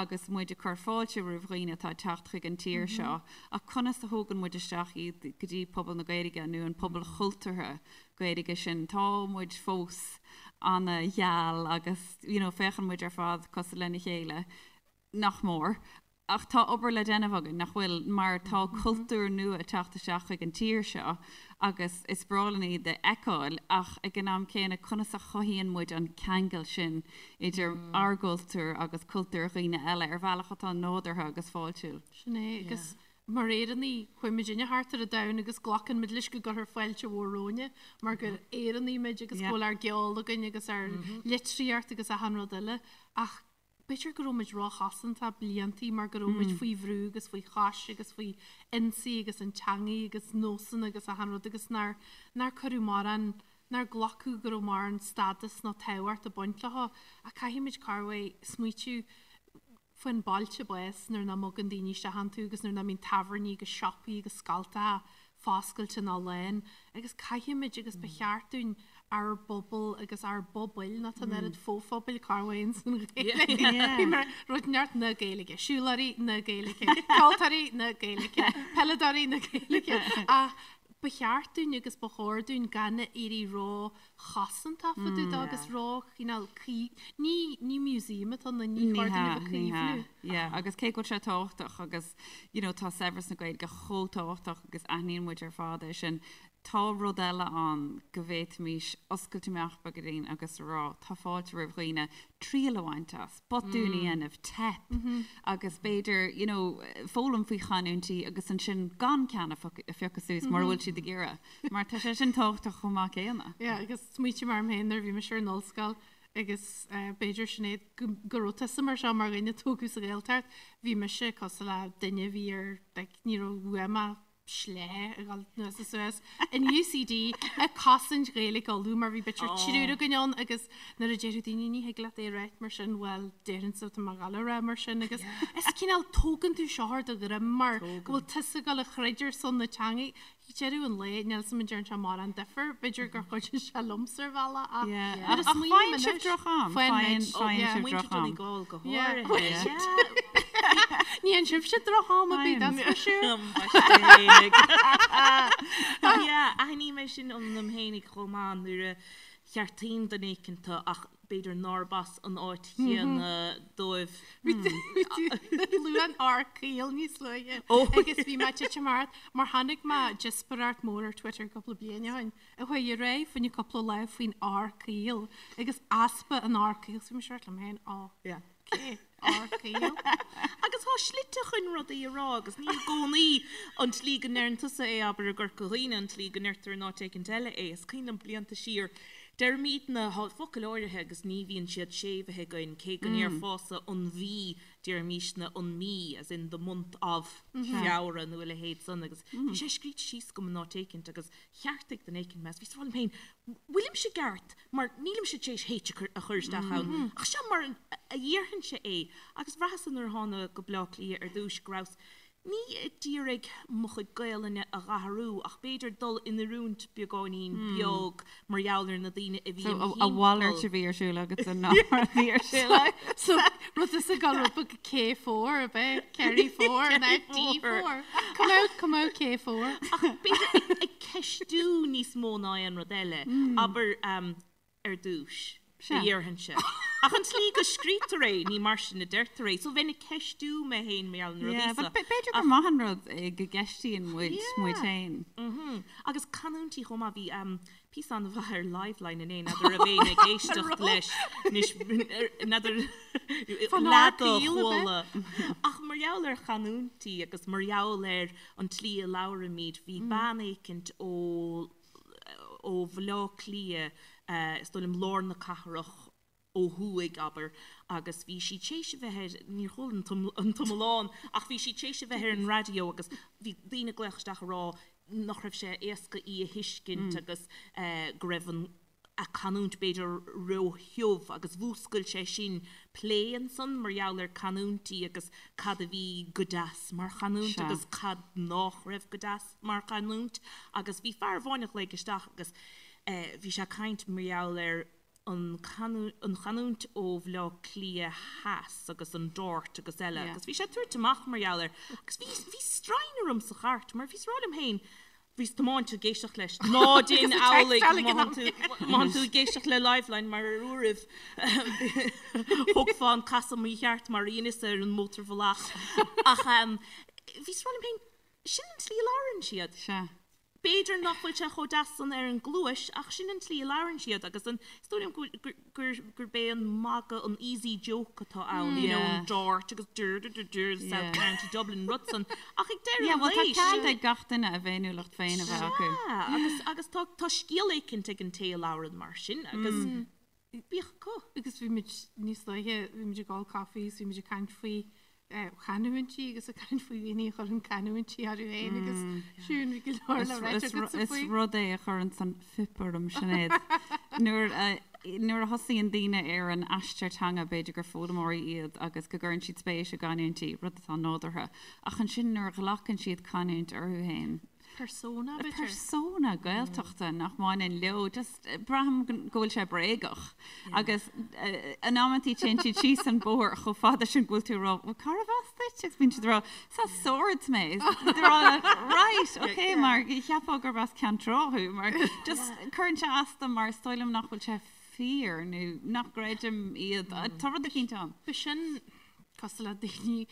agus muid ag cur fáilte roimh dhaoine atá ag teacht chuig an tír seo ach conas a thógann muid isteach iad go dtí pobal na Gaeilge nó an pobal chultúrtha Gaeilge sin. Tá muid fós ana-gheal agus you know féachann muid ar fad cosúil lena chéile, nach mór. Ach tá obair le déanamh againn, nach bhfuil, mar tá cultúr nua ag teacht isteach chuig an tír seo agus is breá linn iad a fheiceáil ach ag an am céanna conas a chothaíonn muid an ceangal sin idir ár gcultúr agus cultúr dhaoine eile ar bhealach atá nádúrtha agus fáiltiúil. Sin é, agus mar Éireannaigh, chuaigh muidinne thart ar an domhan agus glacann muid leis go gcuirfear fáilte mhór romhainne mar gur Éireannaigh muid agus go bhfuil ár gceol againn agus ár litríocht agus achan rud eile ach B'fhéidir go raibh muid róchosantach bliantaí mar go raibh muid faoi bhrú agus faoi chois agus faoi ionsaí agus an teangaidh agus nósanna agus achan rud agus nár, nár cuireadh mórán, nár glacadh go raibh mórán stádas nó tábhacht ag baint leo. Ach caithfidh muid corruair smaoitiú. Faoin bailte bás nuair nach mbogann daoine isteach iontu agus nuair nach mbíonn tábhairní agus siopaí agus scoltacha foscailte ná lán agus caithfimid agus ba cheart dúinn ár bpobal agus ár bpobail, nó tá an oiread fo-phobail cá bhfaigheann san Ghaeilge. Bhí mar rud neart na Gaeilge, siúlóirí na Gaeilge, ceoltóirí na Gaeilge, peileadóirí na Gaeilge ach ba cheart dúinn agus ba chóir dúinn gan éirí ró chosantach fá dtaobh dó agus ró chineál caoi ní ní museum atá ann ní chóir dúinn a bheith ag caomhnú. Yeah, agus cé go bhfuil sé tábhachtach agus you know tá saibhreas na Gaeilge chomh tábhachtach agus aithníonn muid ar fad é sin, tá rud eile ann go bhféadfaimis oscailt amach beagáinín agus a rá tá fáilte roimh dhaoine triail a bhaint as, botún a dhéanamh, teip agus b'fhéidir you know foghlaim faoi chanúintí agus ansin gan ceann a phiocadh suas mura bhfuil siad ag iarraidh. Mar tá sé sin tábhachtach chomh maith céanna. Yeah, agus smaoiním orm féin nuair a bhí mise ar an ollscoil agus b'fhéidir Sinéad go raibh tusa mar seo mar dhuine a tógadh sa Ghaeltacht, bhí mise cosúil le duine a bhí ar, like, ní raibh uaim ach sleá a dhul anuas is suas in UCD ag cosaint Ghaeilge Uladh mar bhí b'fhéidir triúr againn ann agus nuair a déarfadh daoine ní thig leat é a ráit mar sin, bhuel déarfainnse tá mé ag gabháil a rá mar sin agus is cineál tógann tú seo ar do dhroim mar go bhfuil tusa ag gabháil a throid ar son na teanga. Ag deireadh an lae, níl 's a'm an ndearna sé mórán difear, b'fhéidir gur chuidigh sé liomsa ar bhealach ach nuair a smaoiním anois, faigheann sibh droch-am, faigheann sibh droch-am. Donegal go háirithe. Ní fhaigheann sibhse droch-am ar bith, that's for sure. Yeah, aithním é sin ionam fhéinig chomh maith nuair a cheartaím duine éicint ach b'fhéidir nárb as an áit chéanna dóibh. Luadh an R caol níos luaithe agus bhí mé ag titim thart mar chonaic mé díospóireacht mór ar Twitter cúpla bliain ó shin a chuaigh ar aghaidh fá choinne cúpla lá faoin R caol agus easpa an R caol so bhí mise ag rá liom féin ó cé R caol. Agus tá slite chun rudaí a rá agus ní i gcónaí an tslí go ndeireann tusa é abair i gCorca Dhuibhne an tslí go ndeirtear in áit éicint eile é. Is cuimhin liom blianta siar Deirimidne, tá focail áirithe agus ní bhíonn siad séimhithe againn, cé go ndéarfása an mhí, deirimísne an mí, as in the month of Feabhra nó a leithéid san agus bhí sé scríte síos agam in áit éicint agus cheartaigh duine éicint mé agus bhíos ag rá liom féin, bhfuilimse i gceart mar nílimse tar éis H a chur isteach ann ach seo mar a dhéarfainnse é agus bhraitheas-sa nuair a thána go Bleá Cliath ar dtúis go rabhas Ní ag iarraidh mo chuid Gaelainne a dh'athrú ach b'fhéidir dul in oiriúint beagáinín beag mar gheall ar na daoine a bhí im thimpeall. A mhalairt a bhí ar siúl agatsa ná mar a bhí ar siúl agat. So rud is ag dul rud beag K4 ab é? Kerry 4 ná D4. Come out, come out K4. Ach b'fhéidir ag ceistiú níos mó ná aon rud eile. Abair ar dtús, a dhéarfainnse. Ach an tslí go scrítear é, ní mar sin a deirtear é. So bheinn ag ceistiú mé féin mar gheall ar na rudaí seo. B'fhéidir gur maith an rud é go gceistíonn muid muid féin. Agus canúintí chomh maith. Bhí píosa an-mhaith ar Liveline inné, n'fheadar raibh éinne ag éisteacht leis, n'fheadar leath a chuala. Ach mar gheall ar chanúintí agus mar gheall ar an tslí a labhraímid, bhí bean éicint ó ó Bhaile Átha Cliath, is dóigh liom lár na cathrach ó thuaidh, abair, agus bhí sí tar éis a bheith ar, níor chuala an t-iomlán, ach bhí sí tar éis a bheith ar an raidió agus bhí daoine ag glaoch isteach ag rá nach raibh sé éasca í a thuiscint agus go raibh an a canúint b'fhéidir ró-thiubh agus mhúscail sé sin plé ansan mar gheall ar canúintí agus cad a bhí go deas mar chanúint agus cad nách raibh go deas mar chanúint agus bhí fear amháin a ghlaoigh isteach agus bhí sé ag caint mar gheall ar an an chanúint ó Bhaile Átha Cliath Theas agus an Dart agus eile agus bhí sé ag tabhairt amach mar gheall air agus bhí bhí stroighne orm sa chairt mar bhíos ag rá liom féin Bhíos tiomáint ag éisteacht leis. Ná déan amhlaidh má thánn tú ag éisteacht le Liveline mar ar uairibh thógfá an casadh mícheart mar a dheineas ar an mótarbhealach. Ach bhíos ag rá liom féin, sin an tslí a labhrann siad. Sea. B'fhéidir nach bhfuil sé chomh deas san ar an gcluais ach sin an tslí a labhrann siad agus an, is dóigh liom go gur gurb é an magadh an easy joke atá ann, you know, an dart agus dur dur dur dur South County Dublin rud san ach ag deireadh Yeah, well tá cead ag gach duine a bhféiniúlacht féin a bheith acu. Sea, agus agus tá tá scéal éicint ag an té a labhrann mar sin agus bíodh acu. Agus bhí muid níos luaithe, bhí muid ag ól caife agus bhí muid ag caint faoi chanúintí agus ag caint faoi dhaoine a chuireann canúintí orthu féin agus Siún bhí go leor le ráit agatsa faoi. Is rud é a chuireann an fuip orm, Sinéad. Nuair a. nuair a thosaíonn daoine ar an aistear teanga, b'fhéidir gur foghlaimeoirí iad agus go gcuireann siad spéis i gcanúintí, rud atá nádúrtha, ach ansin nuair a ghlacann siad canúint orthu féin, Persona, b'fhéidir. Persona Gaeltachta nach mbaineann leo, just braithim go bhfuil sé bréagach. Agus in amantaí téann siad síos an bóthar chomh fada sin go bhfuil tú ag rá, bhuel cárbh as duit? Agus bíonn siad ag rá, is as Swords mé. Rá, right, ok, mar cheapfá gurb as Ceann Trá thú, mar just cuireann sé as dom mar is dóigh liom nach bhfuil sé fíor nó nach gcreidim iad. Tá rud eicínt ann. B'shin cosúil le daoine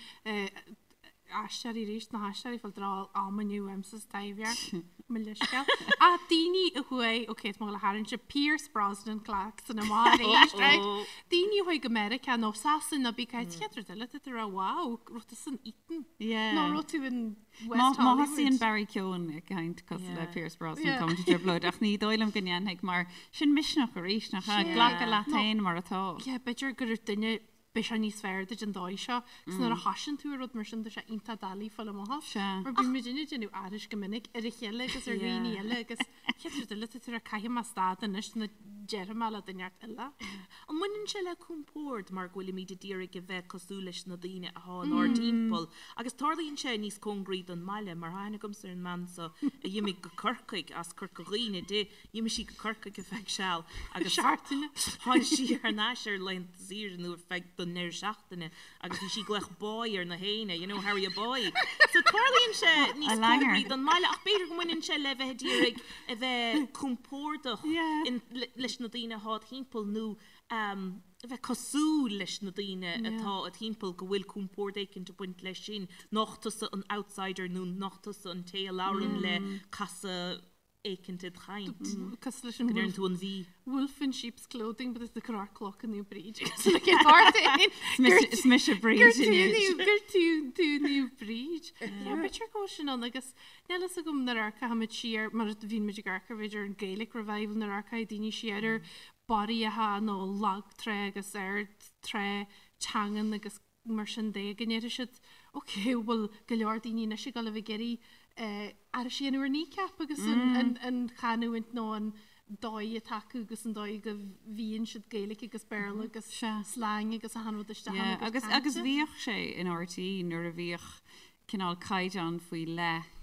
aisteoirí arís, na haisteoirí fáil dráil am inniu uaimse sa Taibhdhearc, mo leithscéal. Ach daoine a chuaigh, ok, tá mé ag gabháil a tharraingt Pierce Brosnan Claxon amach arís, right? Daoine a chuaigh go Meiriceá nó Sasana nó bí cait chéad rud eile, tá tú ag rá wow, raibh tú san Eton nó raibh tú in West Má thosaíonn Barry Keoghan ag caint cosúil le Pierce Brosnan tá muid i dtrioblóid ach ní dóigh liom go ndéanfaidh mar sin misneach arís nach ea? Glacadh leat féin mar atá. Yeah, b'fhéidir go raibh duine beidh sé níos fearr duit an dóigh seo. Agus nuair a thosaíonn tú ar rud mar sin tá sé iontach doiligh fáil amach as. Sea. Mar bíonn muidinne ag déanamh aithris go minic ar a chéile agus ar dhaoine eile agus chéad rud eile tá tú ag rá caithfidh mé stad anois nó déarfaidh mé le duine inteacht eile. An mbaineann sé le compord mar go bhfuilimid ag iarraidh a bheith cosúil leis na daoine athá inár dtimpeall agus tarlaíonn sé níos cóngaraí don mbaile mar tá aithne agamsa ar an mbean so a d'imigh go Corcaigh as Corca Dhuibhne di D'imigh sí go Corcaigh ar feadh seal agus Seachtaine. tháinig sí thar n-ais ar laethanta saoire nó ar feadh don ndeireadh seachtaine agus bhí sí ag glaoch boy ar na héinne, you know, Harry a boy. So tarlaíonn sé níos A langer. cóngaraí don mbaile ach b'fhéidir go mbaineann sé le bheith ag iarraidh a bheith compordach Yeah. in, le, leis na daoine atá id thimpeall nó um, a bheith cosúil leis na daoine atá id thimpeall go bhfuil compord éicint ag baint leis sin, nach tusa an outsider nó nach tusa an té a labhrann le casadh éicint id chaint. Cosúil leis an Go ndeireann tú an bhí. Wolf in sheep's clothing, but is the cur cloch in Bríd. Like in art Is mise Bríd inniu. Gur tú tú Naomh Bríd. Yeah, b'fhéidir go bhfuil sin ann agus níl fhios agam nuair a amharcaimid siar mar a bhíonn muid ag amharc ar b'fhéidir an Gaelic Revival nuair a amharcfaidh daoine siar ar barraíocha nó lag trá agus ard trá teangan agus mar sin de go ndéarfaidh siad ok bhfuil go leor daoine anois ag dul a bheith ag iarraidh aithris a dhéanamh ar Kneecap agus an chanúint nó an dóigh atá acu agus an dóigh go bhfíonn siad Gaeilge agus Béarla agus slang agus achan rud isteach ann agus agus bhíodh sé in RTÉ nuair a bhíodh cineál caighdeán faoi leith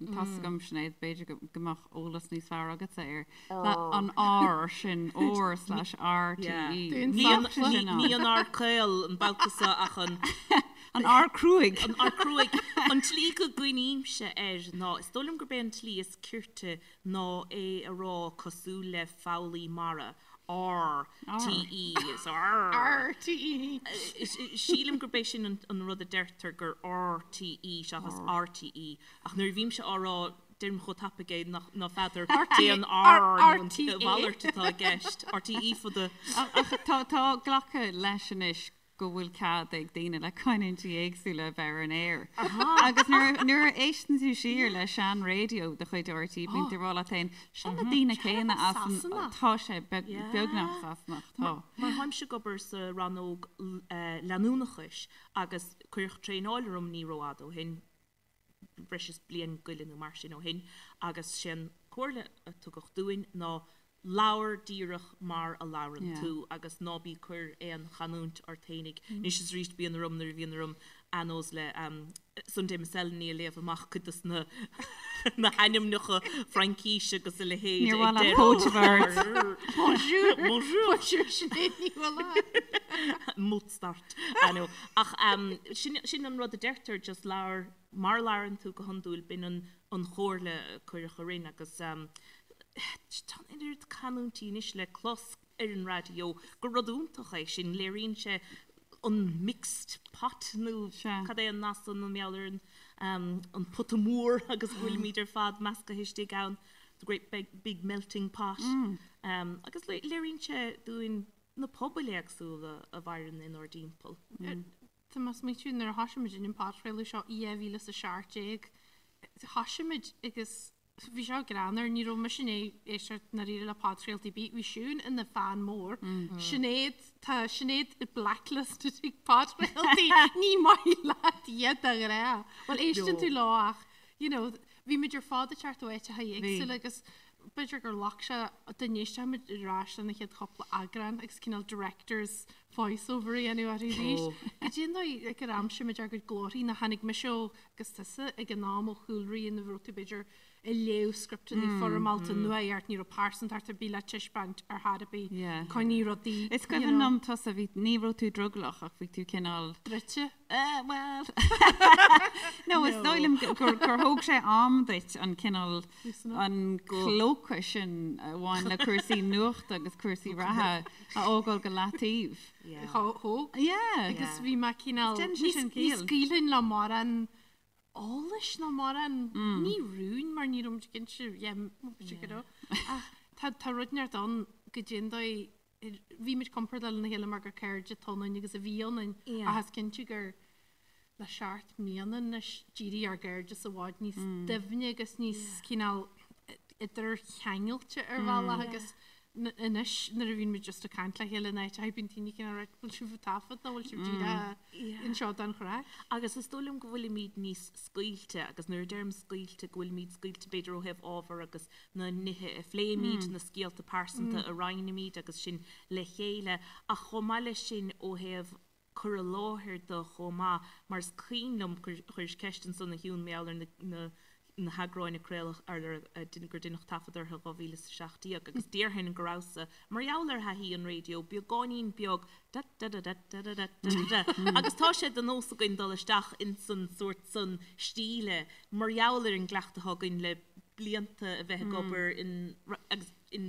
Tá's agam Sinéad, b'fhéidir go mbeadh eolas níos fearr agatsa air. An R sin, R slash RTE. Ní an R caol an babhta seo ach an. An R cruaidh. An R cruaidh. An tslí go gcuimhnímse air ná, is dóigh liom gurb é an tslí is cirte ná é a rá cosúil le foghlaí mara. R, T, E, so R. R, T, E. Sílim gurb é sin an rud a deirtear gur R, T, E seachas R, T, E. Ach nuair a bhímse á rá, deirim chomh tapaidh é nach ná feadar cé an R nó an mhalairt atá i gceist. R, T, E for the. Ach tá glactha leis anois go bhfuil cead ag daoine le canúintí éagsúla a bheith ar an aer. Agus nuair a éisteann tú siar le sean-raidió de chuid RTÉ, bíonn tú ag rá leat féin, seo na daoine céanna as an, tá sé beagnach Sasanach, tá. Mar tháimse ag obair sa rannóg leanúnachais agus cuireadh traenáil orm ní rófhada ó shin, breis is bliain go leith nó mar sin ó shin agus sé an comhairle a tugadh dúinn ná labhair díreach mar a labhrann tú agus ná bí cur aon chanúint ort fhéinig. Anois is arís bíonn orm nuair a bhíonn orm anos le Sunday Miscellany a léamh amach cuid dos na na hainmneacha Fraincíse agus a leithéid Níor mhaith leat póit a bheith ort. Bonjour! Bonjour! Bonjour Sinéad Ní Mhaoláin. Mozart. I know. Ach sin, sin an rud a deirtear, just labhair mar a labhrann tú go hiondúil, b'in an, an chomhairle a cuireadh orainn agus tá an oiread canúintí anois le clos ar an raidió gur rud iontach é sin, léiríonn sé an mixed pot nó cad é an nath san an meall ar an, an pota mór agus go bhfuilimid ar fad meascaithe istigh ann, the great big, big melting pot. Agus léiríonn sé dúinn na pobail éagsúla a mhaireann inár dtimpeall. Tá mé ag smaointiú nuair a thosaigh muid an podchraoladh seo i 2017, thosaigh muid agus bhí seo greannmhar, ní raibh mise i ndiaidh éisteacht ndáiríre le podchraoltaí ar bith, bhí Siún ina fan mór, Sinéad, tá Sinéad blacklisted ag podchraoltaí, ní maith leat iad de ghnáth. Bhuel éisteann tú leo ach, you know, bhí muid ar fad ag teacht ó áiteacha éagsúla agus. b'fhéidir gur ghlac sé dá n-éistfeadh muid ar ais lena chéad chúpla eagrán agus cineál director's voice over a dhéanamh orthu arís. Goidé an dóigh ag ar aimsigh muid ár gcuid glórthaí nó tháinig mise ó agus tusa ag an am ó chúlraí ina raibh tú b'fhéidir ag léamh scripteanna foirmeálta nuacht ní raibh pearsantacht ar bith le taispeáint ar chor ar bith coinnigh rudaí Is cuimhin liom tusa bhí ní raibh tú drogallach ach bhí tú cineál druidte. Bhuel no is dóigh liom gur thóg sé am duit an cineál an clóca sin a bhain le cúrsaí nuachta agus cúrsaí reatha a fhágáil go leataobh. Thóg. Yeah. Agus bhí mé cineál ní scaoilfinn le mórán eolais ná mórán ní rúin mar ní raibh muid cinnte yeah b'fhéidir go raibh ach tá tá rud inteacht ann goidé an dóigh bhí muid compordach lena chéile mar gur cairde atá ionainn agus a bhí ionainn ach is cinnte gur le seacht mbliana anois d'éirigh ár gcairdeas i bhfad níos doimhne agus níos cineál idircheangailte ar bhealach agus anois nuair a bhíonn muid just ag caint le chéile in áit bíonn daoine cineál right bhfuil sibh ag taifead nó bhfuil sibh díreach anseo don chraic? Agus is dóigh liom go bhfuilimid níos scaoilte agus nuair a deirim scaoilte go bhfuilimid scaoilte b'fhéidir ó thaobh ábhar agus na nithe a phléimid, na scéalta pearsanta a roinnimid agus sin le chéile ach chomh maith leis sin ó thaobh cur i láthair de chomh maith mar is cuimhin liom gur chuiris ceist ansan a Shiún mar gheall ar na na heagráin a craoladh ar gur deineadh taifead orthu in 2017 agus déarfainn go rabhas-sa mar gheall ar thaithí an raidió beagáinín beag da da da da da da da da da agus tá sé de nós againn dul isteach insan sórt san stíle mar gheall ar an gcleachtadh atá againn le blianta a bheith ag obair in agus in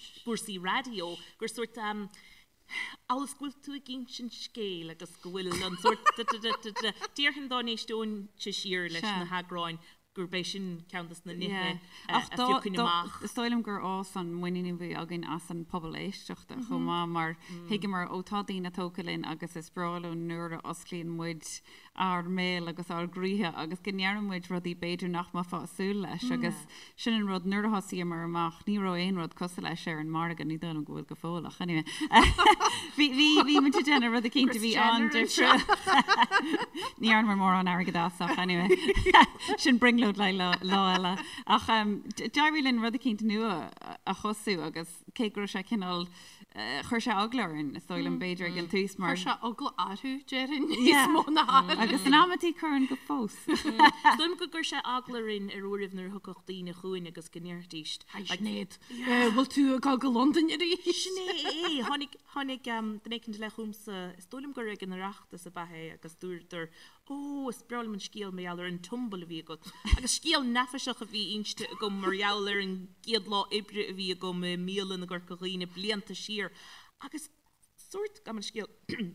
gcúrsaí raidió gur sórt amhail is go bhfuil tú ag insint scéil agus go bhfuil an sórt da da da da da déarfainn dá n-éisteoinnse siar leis na heagráin gurb é sin ceann de na nithe a phiocfainn amach. Is dóigh liom gur fhás an muinín a bhí againn as an pobal éisteachta chomh maith mar thuigeamar ó tá daoine tógtha linn agus is breá leo nuair a osclaíonn muid ár mbéal agus ár gcroíthe agus go ndeireann muid rudaí b'fhéidir nach mbeifeá ag súil leis agus sin an rud nuair a thosaíomar amach ní raibh aon rud cosúil leis ar an margadh, ní dóigh liom go bhfuil go fóill ach anyway bhí bhí bhí muid ag déanamh rud eicínt a bhí an-difriúil. Ní dhearnamar mórán airgid as ach anyway sin brionglóid le lá lá eile ach d'éirigh linn rud eicínt nua a thosú agus cé go raibh sé cineál Chuir sé eagla orainn, is dóigh liom, b'fhéidir ag an tús mar. Chuir sé eagla orthu, déarfainn, níos mó ná orainn. Agus in amantaí cuireann go fós. Is dóigh liom gur chuir sé eagla orainn ar uairibh nuair a thiocfadh daoine chugainn agus go ndéarfaidís. Hi Sinéad, bhfuil tú ag dul go Londain arís? Sin é é! Tháinig, tháinig duine éicint i leith chugamsa, is dóigh liom gur ag an Oireachtas ab ea é agus dúradar Ó, is breá liom an scéal mar gheall ar an tumble a bhí agat. Agus scéal neafaiseach a bhí inste agam mar gheall ar an gcéad lá oibre a bhí agam i mbialann i gCorca Dhuibhne blianta siar. Agus sórt, gabh mo leithscéal,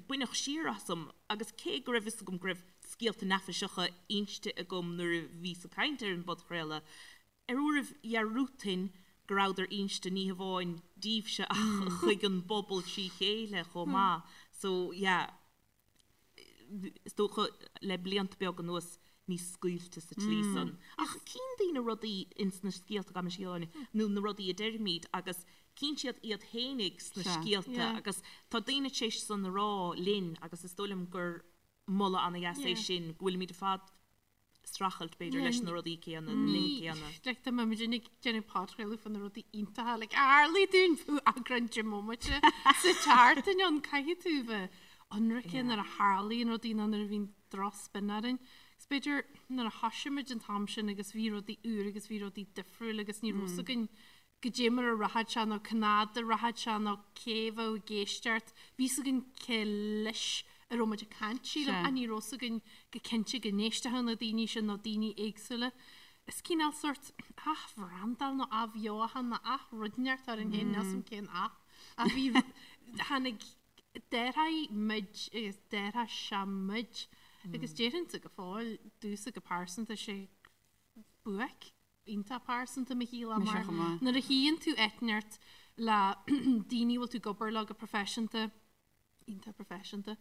baineadh siar asam agus cé go raibh fhios agam go raibh scéalta neafaiseacha inste agam nuair a bhíos ag caint ar an bpodchraoladh, ar uairibh dhearúdfainn go rabhadar inste ní hamháin daoibhse ach chuig an bpobal trí chéile chomh maith. So, yeah. is dócha le blianta beaga anuas níos scaoilte sa tslí san. Ach cíonn daoine rudaí ins na scéalta gabh mo leithscéal nó na rudaí a deirimid agus cíonn siad iad fhéinig sna scéalta agus tá daoine tar éis san a rá linn agus is dóigh liom gur moladh ana-dheas é sin go bhfuilimid ar fad streachailt, b'fhéidir, leis na rudaí céanna, na nithe céanna. Like, dá mbeadh muid ag déanamh podchraoladh faoi na rudaí iontacha, like, a tharlaigh dúinn fiú eagrán 10 mbomaite sa tseachtain ann, caithfidh tú bheith ionraice nuair a tharlaíonn rudaí nó nuair a bhíonn drochspin orainn. Is b'fhéidir nuair a thosaigh muid an t-am sin agus bhí rudaí úr agus bhí rudaí difriúil agus ní raibh fhios againn goidé mar a rachadh sé nó cá fhad a rachadh sé nó cé a bheadh ag éisteacht. Bhí fhios againn cé leis a raibh muid ag caint, sílim, ach ní raibh fhios againn go cinnte go n-éistfeadh na daoine sin nó daoine éagsúla. Is cineál sórt athbhrandáil nó athbheochan nó ath-rud inteacht orainn féin, níl 'fhios a'm cén ath. Ach bhí, tháinig, d'athraigh muid agus d'athraigh sé muid agus déarfainnse go fóill, domhsa go pearsanta, sé buaic. iontach pearsanta mo shaol Mise mar chomh maith. nuair a shuíonn tú áit inteacht le daoine a bhfuil tú ag obair leo go proifisiúnta, iontach proifisiúnta,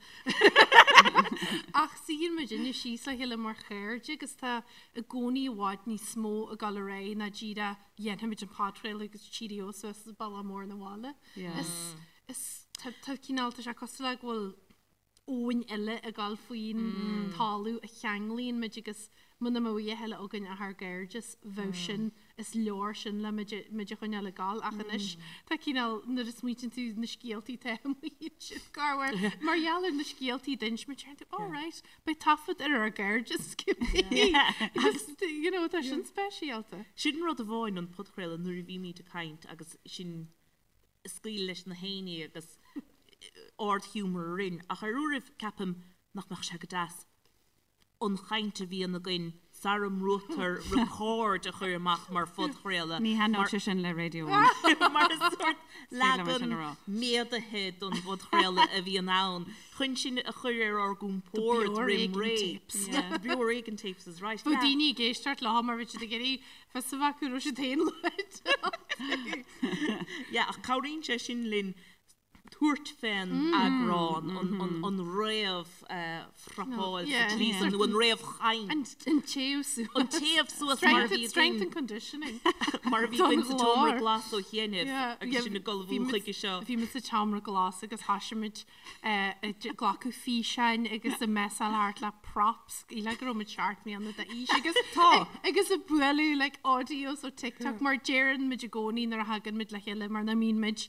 ach suíonn muidinne síos le chéile mar chairde agus tá i gcónaí i bhfad níos mó ag dul ar aghaidh ná díreach dhéanfaimid an podchraoladh agus cheerio suas an bealach mór 'na bhaile. Yeah. Is, is, tá, tá cineál, tá sé cosúil le go bhfuil. abhainn eile ag dul faoin talamh a cheanglaíonn muid agus muna mbeadh a dhath eile againn ach ár gcairdeas, bheadh sin, is leor sin le muid, muid a choinneáil ag dul ach anois tá cineál, nuair a smaoitíonn tú na scéaltaí atá amuigh ansin, corruair, mar gheall ar na scéaltaí d'inis muid, deireann tú, oh right, beidh taifead ar ár gcairdeas cibé agus you know tá sin speisialta. Sin rud amháin an podchraoladh nuair a bhímid ag caint agus sinn ag scaoileadh leis na héinní agus ardghiúmar orainn ach ar uairibh ceapaim nach mbeadh sé go deas an chaint a bhíonn againn sara mbrúitear record a chur amach mar phodchraoladh. Ní thaitneodh sé sin le Radio One. Mar is sórt leagan méadaithe don bpodchraoladh a bhíonn ann chun sinn a chur ar ár gcompord roim ré. The Beo Ar Éigean tapes is right. Bheadh daoine ag éisteacht leo mar bhí siad ag iarraidh fios a bheith acu raibh siad féin luaite. Yeah, ach cabhraíonn sé sin linn tabhairt fén eagrán, an réamh-phrepáil sa tslí san, nó an réamhchaint. An téamh suas. An téamh suas mar a bhí againn. Strength and conditioning. Mar a bhí againn sa tseomra glas ó chianaibh agus sinn ag ullmhú chuige seo. Bhí muid sa tseomra glas agus thoisigh muid ag glacadh físeáin agus ag messáil thart le props le go raibh muid 7 mbliana d'aois agus Tá. agus ag bualadh like audios ó TikTok mar deireann muid i gcónaí nuair a thagann muid le chéile mar nach mbíonn muid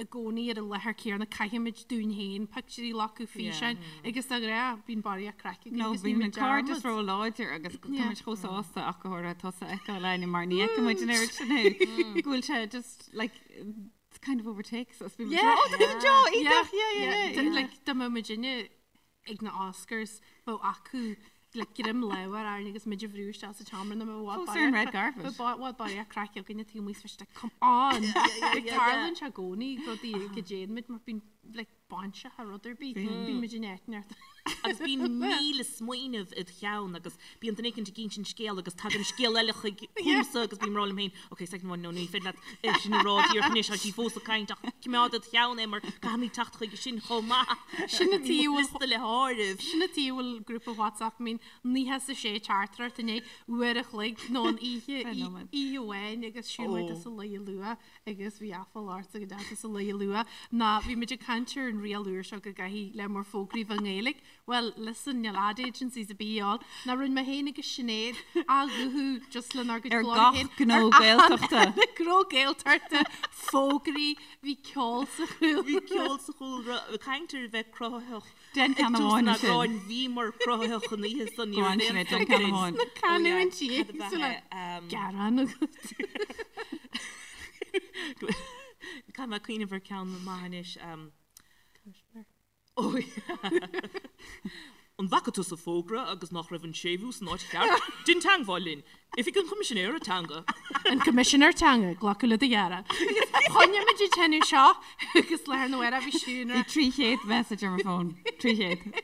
i gcónaí ar an láthair céanna caithfimid dúinn féin pictiúirí a ghlacadh físeáin agus de ghnáth bíonn barraíocht craic againn Nó agus bíonn bíonn an muid cairdeas dearmad. ró-láidir agus tá Yeah. muid chomh sásta ach go háirithe tusa a fheiceáil Áine mar ní fheiceann muid an oiread sin thú go bhfuil sé just like it's kind of overtakes us. Bíonn muid Yeah. oh, tá Joe, iontach, yeah, yeah, Yeah, yeah, yeah. Like dá mbeadh muidinne ag na Oscars bheadh acu like greim láimhe orainn agus muid a bhrú isteach sa tseomra nó bheadh Fós ar an red carpet. Bheadh bhfuil barraíocht craic againne taobh amuigh is like come on. Like tarlaíonn sé i gcónaí rudaí go dtéann muid mar bíonn like bainseach ar rud ar bith. Bíonn muid in eitneart. Agus bíonn 1000 smaoineamh id cheann agus bíonn duine éicint ag insint scéal agus tagann scéal eile chuig chugamsa agus bím ag rá liom féin, ok, second one, no, ní féidir leat é sin a rá díreach anois, tá sí fós ag caint ach coimeád id cheann é mar caithfimid teacht chuige sin chomh maith. Sin an tuige a bhfuil Liosta le háireamh. Sin an tuige a bhfuil grúpa WhatsApp I mean 96 teachtaireacht i ndiaidh uair a chloig nó an oíche oíche amháin agus siúl muid as an luí luath agus bhí aiféala ortsa go dteagas sa luí luath ná bhí muid ag caint ar an riail úr seo go gcaithfidh le mór fógraí bheith i nGaeilge. Well, listen, níl ad agencies ar bith ann. Ná rinne mé féin agus Sinéad á ghuthú just lenár gcuid Ar glór gach féin. gnó Ar achan Gaeltachta. gnó Gaeltachta, fógraí, bhí ceol sa chúlra. Bhí ceol sa chúlra, caint ar bheith cruthaitheach. Déan Ag ceann tús amháin an ansin. eagráin bhíomar cruthaitheach an oíche san ní Go on raibh aon Sinéad, déan stop ceann linn. amháin. Na canúintí Oh yeah, cad a éagsúla. bheith, um, Gearán agat. Caithfidh mé cuimhneamh ar ceann maith anois. Um, oh yeah. An bhfaca tusa fógra agus nach raibh an séimhiú san áit cheart? Déan teagmháil linn. Oifig an Choimisinéara Teanga. An Coimisinéir Teanga, glacadh le do ghearán. Choinnigh muid ag déanamh seo agus lá arna mhárach bhí Siún Bhí 300 message ar mo fón. 300.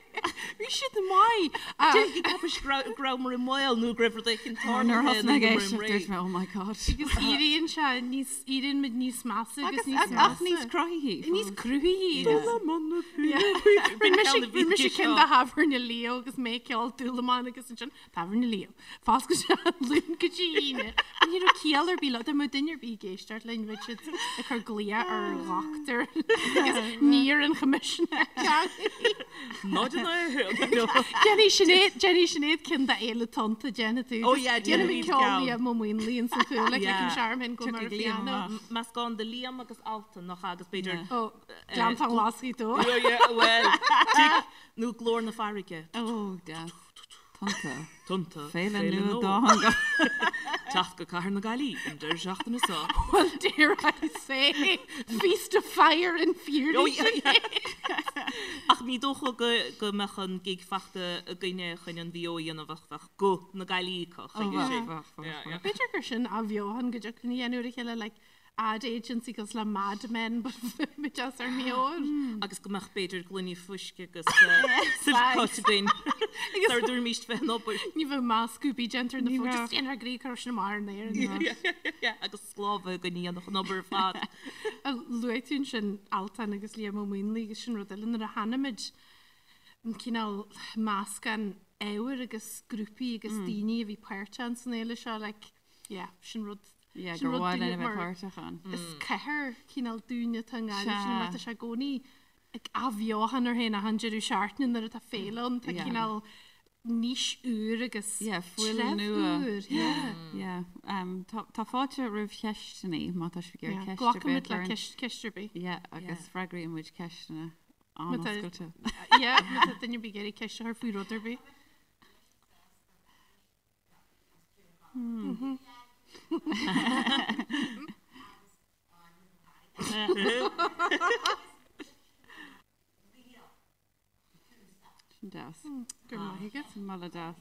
Bhí siad maith. Déarfaidh ceapais go rabhamar i mbaol nó go raibh rud éicint Nuair a tarlaithe thosaigh mé ag nó go éisteacht raibh dúirt mé oh my god. Agus éiríonn sé níos, éiríonn muid níos measa agus Agus níos measa. ach níos cruthaithí. Níos cruthaithí. Rinne Rinne mise ceann de Thábhairne Leo agus mé ag ceol Dúlamán agus ansin Tábhairne Leo. Foscailte Luan go dtí Aoine. Ní raibh ciall ar bith leo. Dá mbeadh duine ar bith ag éisteacht linn bheadh siad ag cur glaoch ar dhochtúir agus ní ar an Choimisinéir Teanga. 0 1. Déanfaidh Sinéad déanfaidh Sinéad ceann de Fhéile Tonnta déanfaidh tú. Oh yeah, Déanfaidh déanfaimid ceol ceann. Liam Ó Maonlaí ins an chúl like Yeah. an searm hin go mar Tiocfaidh Liam piano. amach. Meascán de Liam agus Altan nach ea agus b'fhéidir Yeah. Ó, Gleanntán Ghlas Ghaoth Dobhair. Oh yeah, well, tig nó glór na farraige. Oh, deas. Tonnta. Tonnta. Féile Féile nua nua. dátheangach. Teacht go Cathair na Gaillimhe an deireadh seachtaine seo. Well, dare I say, feast of fire and fury. Oh, yeah, yeah. Ach ní dócha go go mbeadh an gig fachta againne chun an VO a dhéanamh ach bheadh guth na Gaillimhe acu Oh, chuige bheadh, sin. bheadh, bheadh, Yeah, bheadh. yeah. B'fhéidir gur sin athbheochan go dtiocfainn a dhéanamh ar a chéile, like, ad agency cosúil le Mad Men but muid as ár meabhair. Agus go mbeadh b'fhéidir gloiní fuisce agus silk-cut againn sara dtabharfaimís fén obair. Ní bheadh meascadh bídh déanta ar na Ní fóid, bheadh. just déanfar grí cur sin amach ar an aer. Agus sclábhaithe againn a dhéanfadh an obair ar fad. Luaigh tú ansin Altan agus Liam Ó Maonlaí agus sin rud eile nuair a chonaic muid an cineál meascán ábhair agus grúpaí agus daoine a bhí páirteach san fhéile seo like yeah sin rud Yeah, Sin gur rud mhaith linn dúinne a bheith mar páirteach ann. Is cathair cineál dúinne atá i nGaillimh sin mar tá sé i gcónaí. ag athbheochan air féin achan deireadh seachtaine nuair atá féile ann, tá cineál nís úr agus Yeah, fuil treibh nua. úr, yeah. Yeah. Um, tá, tá fáilte roimh cheisteanna má tá sibh ag iarraidh Yeah, ceist ar bith Glacaimid le a chur. ceist, ceist ar bith. Yeah, agus freagraíonn muid ceisteanna Má tá- an-oscailte. Yeah, má tá duine ar bith ag iarraidh ceist a chur faoi rud ar bith. Sin deas. Go raibh maith agat. Sin moladh deas.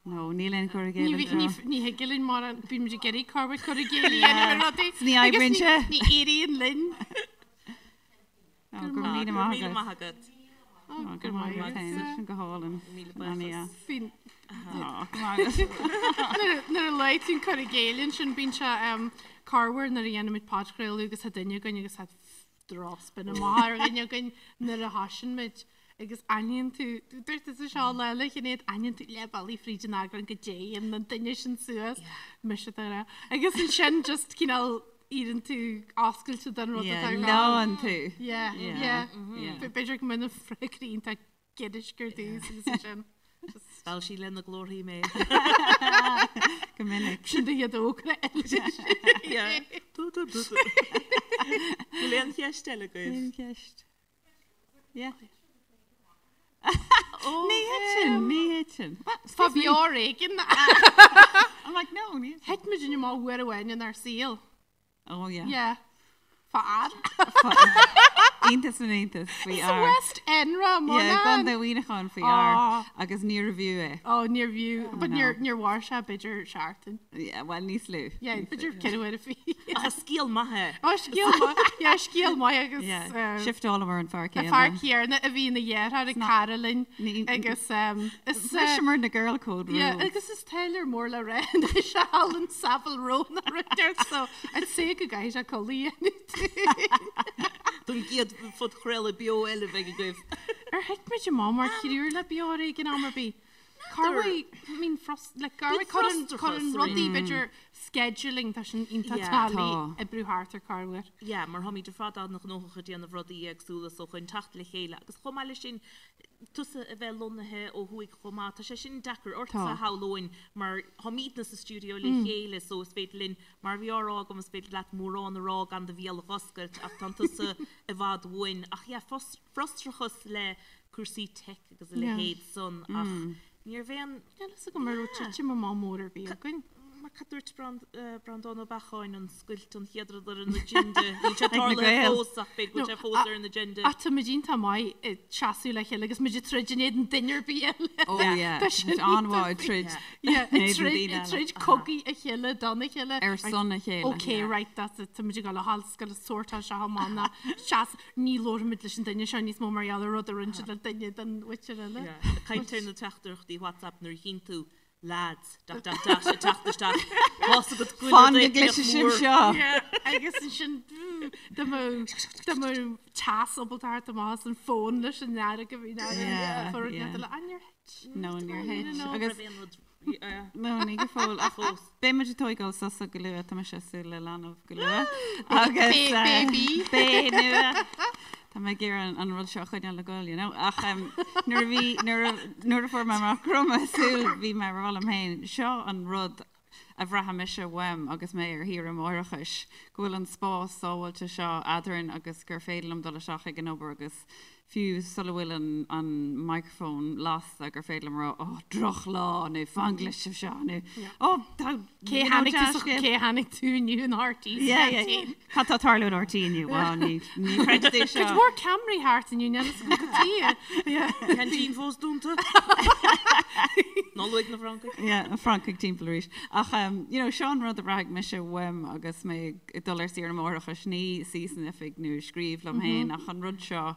No, níl aon chur i Ní gcéill anseo. ní thig linn mar bíonn muid ag iarraidh corruair cur i gcéill a dhéanamh ar rudaí. Ní oibríonn sé. Ní éiríonn linn. Ó, go raibh míle Go raibh maith míle agat. maith agat. Ó, go raibh maith agat féin. Sin go hálainn. Míle Sin an-dheas. buíochas. Bíonn Ó, go maith agat. Nuair a luaigh tú an cur i gcéill ansin bíonn sé corruair nuair a dhéanaimid podchraoladh agus tá duine againn agus tá drochspin amach ar dhuine againn nuair a thosaíonn muid agus aithníonn tú, dúirt tusa seo lá eile a Shinéad, aithníonn tú leath bealaigh fríd an eagrán go dtéann an duine sin suas, mise de ghnáth. Agus ansin just cineál éiríonn tú oscailte don rud atá Yeah, ar rá. leánn tú. Yeah, Yeah, yeah. yeah. B'fhéidir go mbeidh na freagraí iontach giorraisc ar dtús agus ansin just Mheall sí lena glórthaí mé. Go minic. sin do chéad fhógra eile. Yeah. Du, du, du, du. Bhfuil aon cheist eile agaibh? Aon cheist? Yeah. Ní thiteann, ní thiteann. Fá Beo Ar Éigean. I'm like, no, ní thiteann. Thit muid amach uair amháin inár saol. Oh yeah. Yeah. Fá fhear. Iontas na n-iontas faoi Sa fhear. West End ra, Yeah, Mona. Contae Mhuineacháin faoi fhear Ah. agus níorbh fhiú é. Oh, níorbh fhiú. But no. níor níor mhair sé b'fhéidir seachtain. Yeah, well níos lú. Yeah, Níos lú. b'fhéidir ceithre huaire faoi. Ach scéal maith é. Oh, scéal maith. Yeah, scéal maith agus Yeah, eh, shiftálamar an fear an céanna. fear céanna a bhí ina dheartháir ag cara linn Ní- agus um, is eh, Bhriseamar na girl code Yeah, rules. agus is tailor mór le rá anois Alan Savile Row na rudair so I'd say go gcaithfidh sé codladh a dhéanamh. Don gcéad phodchraoladh beo eile a bheidh agaibh. Ar thit muid amach mar thriúr le Beo Ar Éigean am ar bith? Corruair, I mean, frust, like, corruair cuireann frustrachas, cuireann rudaí b'fhéidir scheduling tá sin iontach Yeah. táillí Tá. oibriú thart ar corruair. Yeah, mar táimid ar fad an-ghnóthach ag déanamh rudaí éagsúla so chun teacht le chéile agus chomh maith leis sin tusa a bheith lonnaithe ó thuaidh chomh maith, tá sé sin deacair ortsa Tá. shamhlóinn mar táimidne sa stiúideo le chéile so is féidir linn, mar a bhí á rá agam, is féidir leat mórán a rá gan do bhéal a dh'oscailt ach tánn tusa i bhfad uainn. Ach yeah, frustrachas le cúrsaí teic agus a leithéid san ach níorbh aon. Níl fhios agam an raibh titim amach mór ar bith againn. Mar cad dúirt Breandán Ó Beacháin, an scoilt an chéad rud ar an agenda. Níl sé Ag na tarlaithe Gaeil. fós ach b'fhéidir go bhfuil sé fós ar an agenda. Ach tá muid iontach maith ag seasamh le chéile agus muid ag troid in éadan duine ar bith eile. Oh yeah, Tá sin tá an-mhaith ag troid Yeah, in ag éadan troid daoine ag eile. troid cogaidh a chéile don a chéile. Ar son a chéile. Okay, right, that's it. Tá muid ag dul a dhul scoil a sórtáil seo amach ná seas ní labhróimid leis an duine seo níos mó mar gheall ar rud a rinne siad le duine den mhuintir eile. Yeah. Ag caint ar na teachtaireachtaí WhatsApp nuair a chíonn tú lads dot dot dot ag teacht isteach. Tá's agat go bhfuil Fan rud go éicint gcloisfidh sibh mór. seo. Yeah, agus ansin dá mbeadh dá mbeadh teas ábalta theacht amach as an fón leis an fhearg a bhí Yeah, ann. yeah. Ah, níor thit. No, níor thit. No. Agus Raibh aon rud yeah. No, ní go fóill. Ach Fós. beidh muid ag tógáil sosa go luath, tá mise ag súil le leanbh go luath. Agus Ba- eh, baby. Bé nua. Tá mé ag iarraidh an rud seo a choinneáil ag goil, you know. Ach em, nuair a bhí nuair a nuair a fuair mé amach go raibh mé ag súil, bhí mé ag rá liom féin, seo an rud a bhraithfidh mise uaim agus mé ar shaoire máithreachais, go bhfuil an spás sábháilte seo eadrainn agus gur féidir liom dul isteach ag an obair agus fiú sula bhfuil an an microphone lasta gur féidir liom a rá oh drochlá nó fan go gcloisfidh sibh seo nó oh tá Cé you know, tháinig tú sa- deascéal. cé tháinig tú inniu in RTÉ Yeah, yeah, yeah. Cad tá ag tarlú in RTÉ inniu? Well, ní ní chreidfidh tú seo. Cuid mhór ceamaraí thart inniu, níl fhios agam cad tuige. Yeah. Ceaintín fós dúnta. Ná luaigh na Francaigh. Yeah, na Francaigh timpeall arís. Ach um, you know, seo an rud a bhraithfidh mise uaim agus mé ag dul ar saoire máithreachais, ní suí san oifig nó scríobh liom féin ach an rud seo,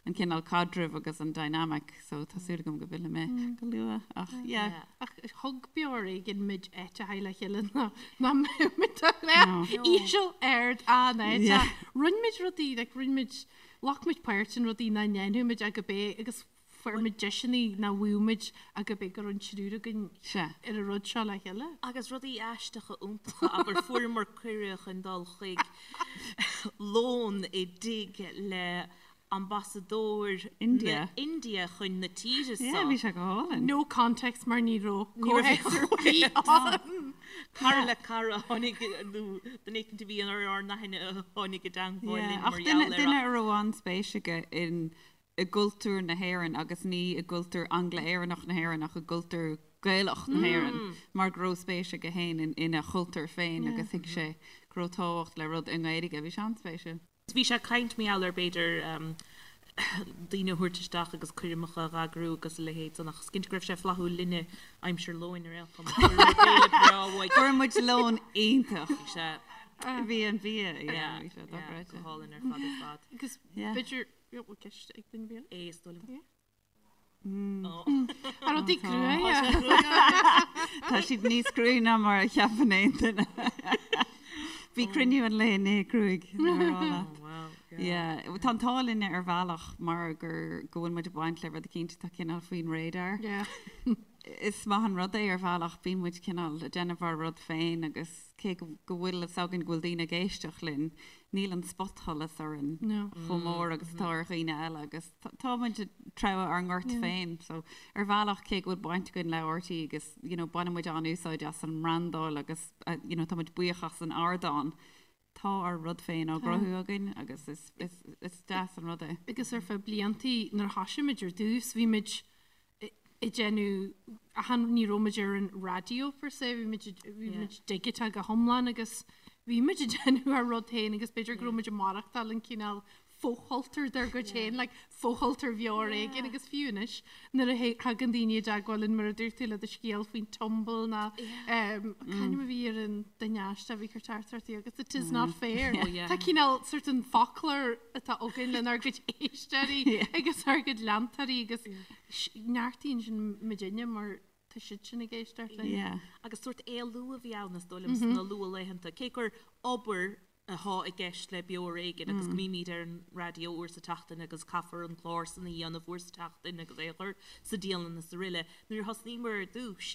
an cineál caidrimh agus an dynamic, so tá súil agam go bhfillfidh mé go luath ach yeah. Yeah. Ach thug Beo Ar Éigean muid áit a haghaidh le chéile ná ná mbeadh muid a le íseal ard an-áit. Yeah. Rinne muid rudaí, like rinne muid, ghlac muid páirt in rudaí nach ndéanfadh muid ach go bé agus fuair muid deiseanna nach bhfaigheadh muid ach go bé go raibh an triúr againn Sea. ar an rud seo le chéile. Agus rudaí aisteacha iontacha, abair fuaireamar cuireadh chun dul chuig lón i dtigh le. Ambasadóir India. na India chun na tíre Yeah, so. bhí sé go hálainn. No context mar ní raibh Ní raibh comhthéacs ar bith ann. Cara le cara a tháinig nó duine éicint a bhí ar ár n-aithne a tháinig i dteangmháil Yeah, linn ach mar duine gheall air duine a raibh an-spéis aige in i gcultúr na hÉireann agus ní i gcultúr Angla-Éireannach na hÉireann ach i gcultúr Gaelach na hÉireann mar go raibh spéis aige féin in ina chultúr féin agus thuig sé go raibh tábhacht le rud i nGaeilge. Bhí sé an-spéisiúil. Bhí sé ag caint mar gheall ar b'fhéidir daoine a thabhairt isteach agus coirmeacha a dh'eagrú agus a leithéid san ach is cinnte go raibh sé flaithiúil linne aimsir lóin ar aon chuma. Fuair muid béile breá uaidh. Fuair muid lón iontach. Bhí sé. Bhí an bia, yeah, bhí sé dochreidte. Go hálainn ar fad ar fad. Agus Yeah. b'fhéidir, bhfuil ceist ag duine bia? É is dóigh liom. Yeah. Ar rudaí cruaidhe. Tá siad níos cruaí ná mar a cheapann aon duine. Bhí cruinniú an lae inné cruaidh. Yeah. Tá an t-ádh linne ar bhealach mar gur go bhfuil muid ag baint le rud eicínt atá cineál faoin radar. Yeah. Is maith an rud é ar bhealach, bíonn muid cineál ag déanamh ár rud féin agus cé go go bhfuil fhios againn go bhfuil daoine ag éisteacht linn, níl an spotsholas orainn chomh mór agus atá ar dhaoine eile agus tá muid ag treabhadh ár ngort féin. So ar bhealach cé go bhfuil baint againn le RTÉ agus you know baineann muid an-úsáid as an mbrandáil agus you know tá muid buíoch as an ardán, tá ár rud féin á gcruthú againn agus is is is deas an rud é. Agus ar feadh bliantaí nuair a thoisigh muid ar dtús bhí muid ag déanamh achan ní raibh muid ar an raidió per se, bhí muid bhí muid digiteach go hiomlán agus bhí muid ag déanamh ár rud féin agus b'fhéidir go raibh muid ag maireachtáil an cineál fochultúr dár gcuid féin, like fochultúr Bheo Ar Éigean agus fiú anois nuair a thagann daoine i dteagmháil linn mar a dúirt tú le do scéal faoin tumble ná c'ainm a bhí ar an duine aisteach a bhí ag cur teachtaireachtaí agus it is not fair. Tá cineál sort an foclóir atá againn lenár gcuid éisteoirí agus ár gcuid leantóirí agus neartaíonn sin muidinne mar tá siad sin ag éisteacht linn. Yeah. Agus sórt éalú a bhí ann is dóigh liom sna luathlaethanta, cé gur obair atá i gceist le Beo Ar Éigean agus go mbímid ar an raidió uair sa tseachtain agus caithfear an clár san a dhéanamh uair sa tseachtain agus é a chur sa dialann is aroile. Nuair a thosnaíomar ar dtús,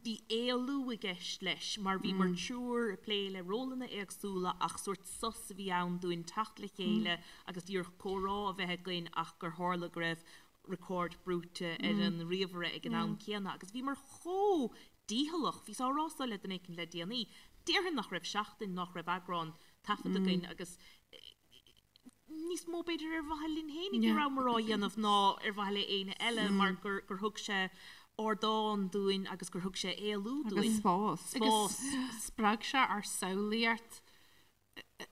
bhí éalú i gceist leis mar bhíomar triúr ag plé le rólanna éagsúla ach sórt sos a bhí ann dúinn teacht le chéile agus díreach comhrá a bheith againn ach gur tharla go raibh record brúite ar an ríomhaire ag an am céanna agus bhíomar chomh dícheallach. Bhíos á rá so le duine éicint le déanaí. Déarfainn nach raibh seachtain nach raibh eagrán taifeadta againn agus níos mó b'fhéidir ar mhaithe linn fhéinig a rabhamar á dhéanamh ná ar mhaithe le éinne eile mar gur gur thug sé ardán dúinn agus gur thug sé éalú Agus dúinn. spás. Agus Spás. spreag sé ár samhlaíocht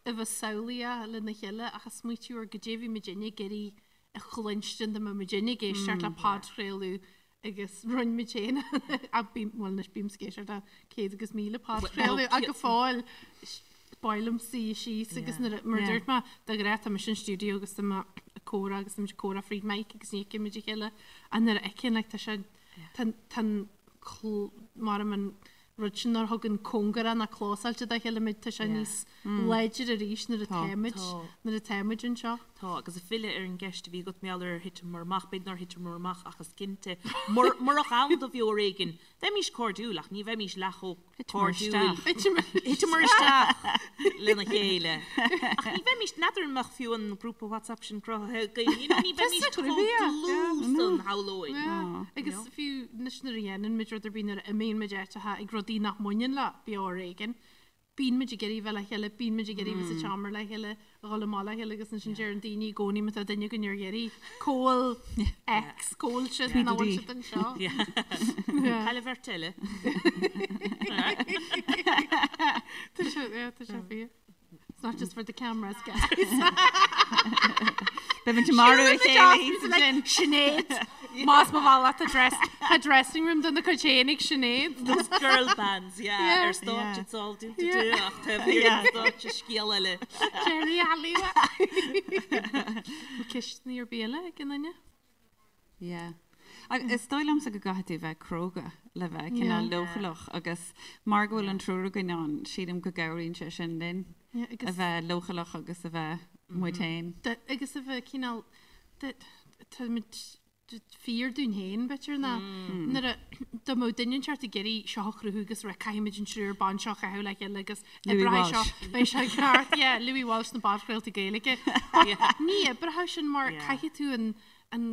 a bheith samhlaíoch lena chéile ach ag smaoitiú ar goidé a bhí muidinne ag iarraidh a chluinstin dá mbeadh muidinne ag éisteacht le podchraoladh agus rinne muid féin bhuel anois bímse ag éisteacht le 100 agus 1000 podchraoladh ach go fóill b'áil liom suí síos agus nuair a, mar a dúirt mé, de ghnáth tá mise in stiúideo agus tá mé ag comhrá agus tá muid ag comhrá fríd mic agus ní fheiceann muid a chéile ach nuair a fheiceann like tá sé tá tá an mar an rud sin nár thugann cóngarach ná clósáilte dá chéile muid tá sé níos láidre arís nuair atá muid nuair atá muid anseo. Tá, agus ag filleadh ar an gceist a bhí agat mar gheall ar ar thiteamar amach, b'fhéidir nár thiteamar amach ach is cinnte, murach ann do Bheo Ar Éigean, bheimís cairdiúil ach ní bheimís leath chomh cairdiúil. Thiteamar isteach lena chéile. Ach ní bheimís, n'fheadar an mbeadh fiú an grúpa WhatsApp sin cruthaithe againn, you know, ní bheimís chomh dlúth san shamhlóinn. Agus fiú anois nuair a dhéanann muid rud ar bith, nuair a imíonn muid áiteacha ag rudaí nach mbaineann le Beo Ar Éigean, bíonn muid ag iarraidh bheith le chéile, bíonn muid ag iarraidh bheith sa tseomra le chéile, a dhul amach le chéile agus ansin deireann daoine i gcónaí má tá duine againn ar iarraidh, cá bhfuil X, cá bhfuil siad, nach bhfuil siad anseo. Cá bhfuil an bheirt eile. Tá sé, yeah, tá sé fíor. It's not just for the cameras, guys. Beidh muid ag marú a chéile thíos ansin. Sinéad! Más mo bhealach tá dress, tá dressing room dona cuid féin ag Sinéad. Those girl bands, yeah, Yeah. ar stáitse it's all do do Yeah. do ach taobh thiar den stáitse scéal eile. Jerry Halliwell. Ceisteanna ar bith eile ag aon duine? Yeah. Agus is dóigh liomsa go gcaithfidh tú bheith cróga le bheith cineál leochaileach agus mar go bhfuil an triúr againn ann, sílim go gcabhraíonn sé sin linn a bheith leochaileach agus a bheith muid féin. Agus a bheith cineál, táimid fíor dúinn féin, b'fhéidir, ná nuair a dá mbeadh duine inteacht ag iarraidh seo a chruthú agus rá caithfimid an triúr ban seo a chaitheamh le chéile agus oibreoidh seo, beidh sé ceart, yeah, Louis Walsh na bpodchraoltaí Gaeilge. But ní oibreoidh sin mar caithfidh tú an an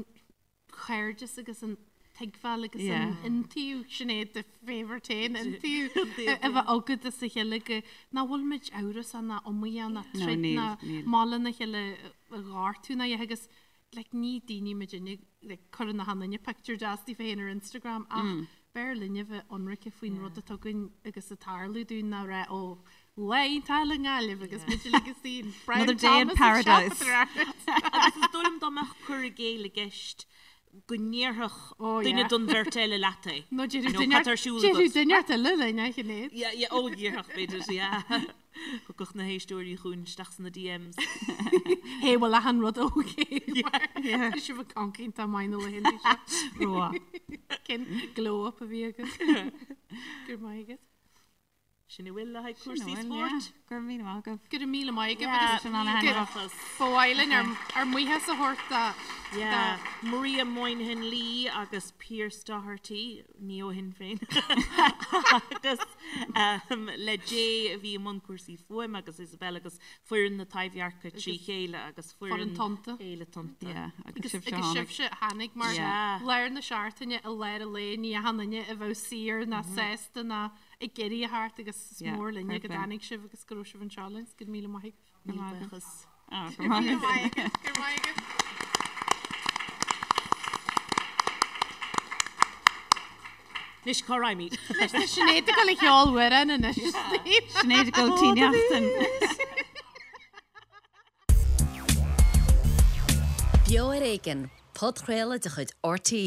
cairdeas agus an tuigbheáil agus an iontaoibh, Sinéad do favourite féin, iontaoibh a bheith agat as a chéile go nach bhfuil muid amhrasach ná iomaíoch ná troid ná maith lena chéile a ghortú ná a dhath agus like ní daoine muidinne like cuireann achan duine pictiúr deas díobh féin ar Instagram ach b'fhearr linne bheith ionraice faoin rud atá againn agus ag tarlú dúinn ná rá ó lá iontach i nGaillimh agus muid uilig istigh in Brown Another day in Thomas ag paradise. siopadóireacht. Agus is dóigh liom dá mbeadh cur i gcéill i gceist go ndéarfadh Oh, duine yeah. den bheirt eile leat é. Nó You déarfadh know, duine cad tá ar siúl déarfadh agat? duine eile linn, a Shinéad. Yeah, yeah, ó déarfadh b'fhéidir, yeah. Thiocfadh na héisteoirí chugainn isteach sna DMs. Hé, bhfuil achan rud okay? Tá sibh ag caint iontach maith na laethanta seo. Rua. Cén glow up a bhí agat? Go raibh maith agat. Sin a bhfuil le haghaidh cúrsaí spóirt. Go raibh míle maith agaibh. Go raibh míle maith agaibh agus Sin an-thaitneamhach. Ba mhaith linn ár mbuíochas a thabhairt do Yeah, Maria Moynihan Lee agus Pearse Doherty, ní ó Shinn Féin, agus le Jay a bhí i mbun cúrsaí fuaime agus Isabel agus foireann na Taibhdheirce trí chéile agus foireann foireann Tonnta. Fhéile Tonnta. Yeah, agus Agus sibhse agus tháinig. sibhse a tháinig mar Yeah. lár na seachtaine i lár an lae ní achan duine a bheadh saor ná sásta ná ag iarraidh a theacht agus is Yeah, mór linne fair go play. dtáinig sibh agus go raibh sibh anseo linn. Go raibh míle maith agaibh. Go raibh maith agat. Buíochas. Ah, go raibh maith agat. Go raibh maith agaibh. Anois cá raghaimid? Anois tá Sinéad ag dul a cheol amhrán anois. Sinéad ag dul Tí Neachtain. Beo ar Éigean, podchraoladh de chuid RTÉ.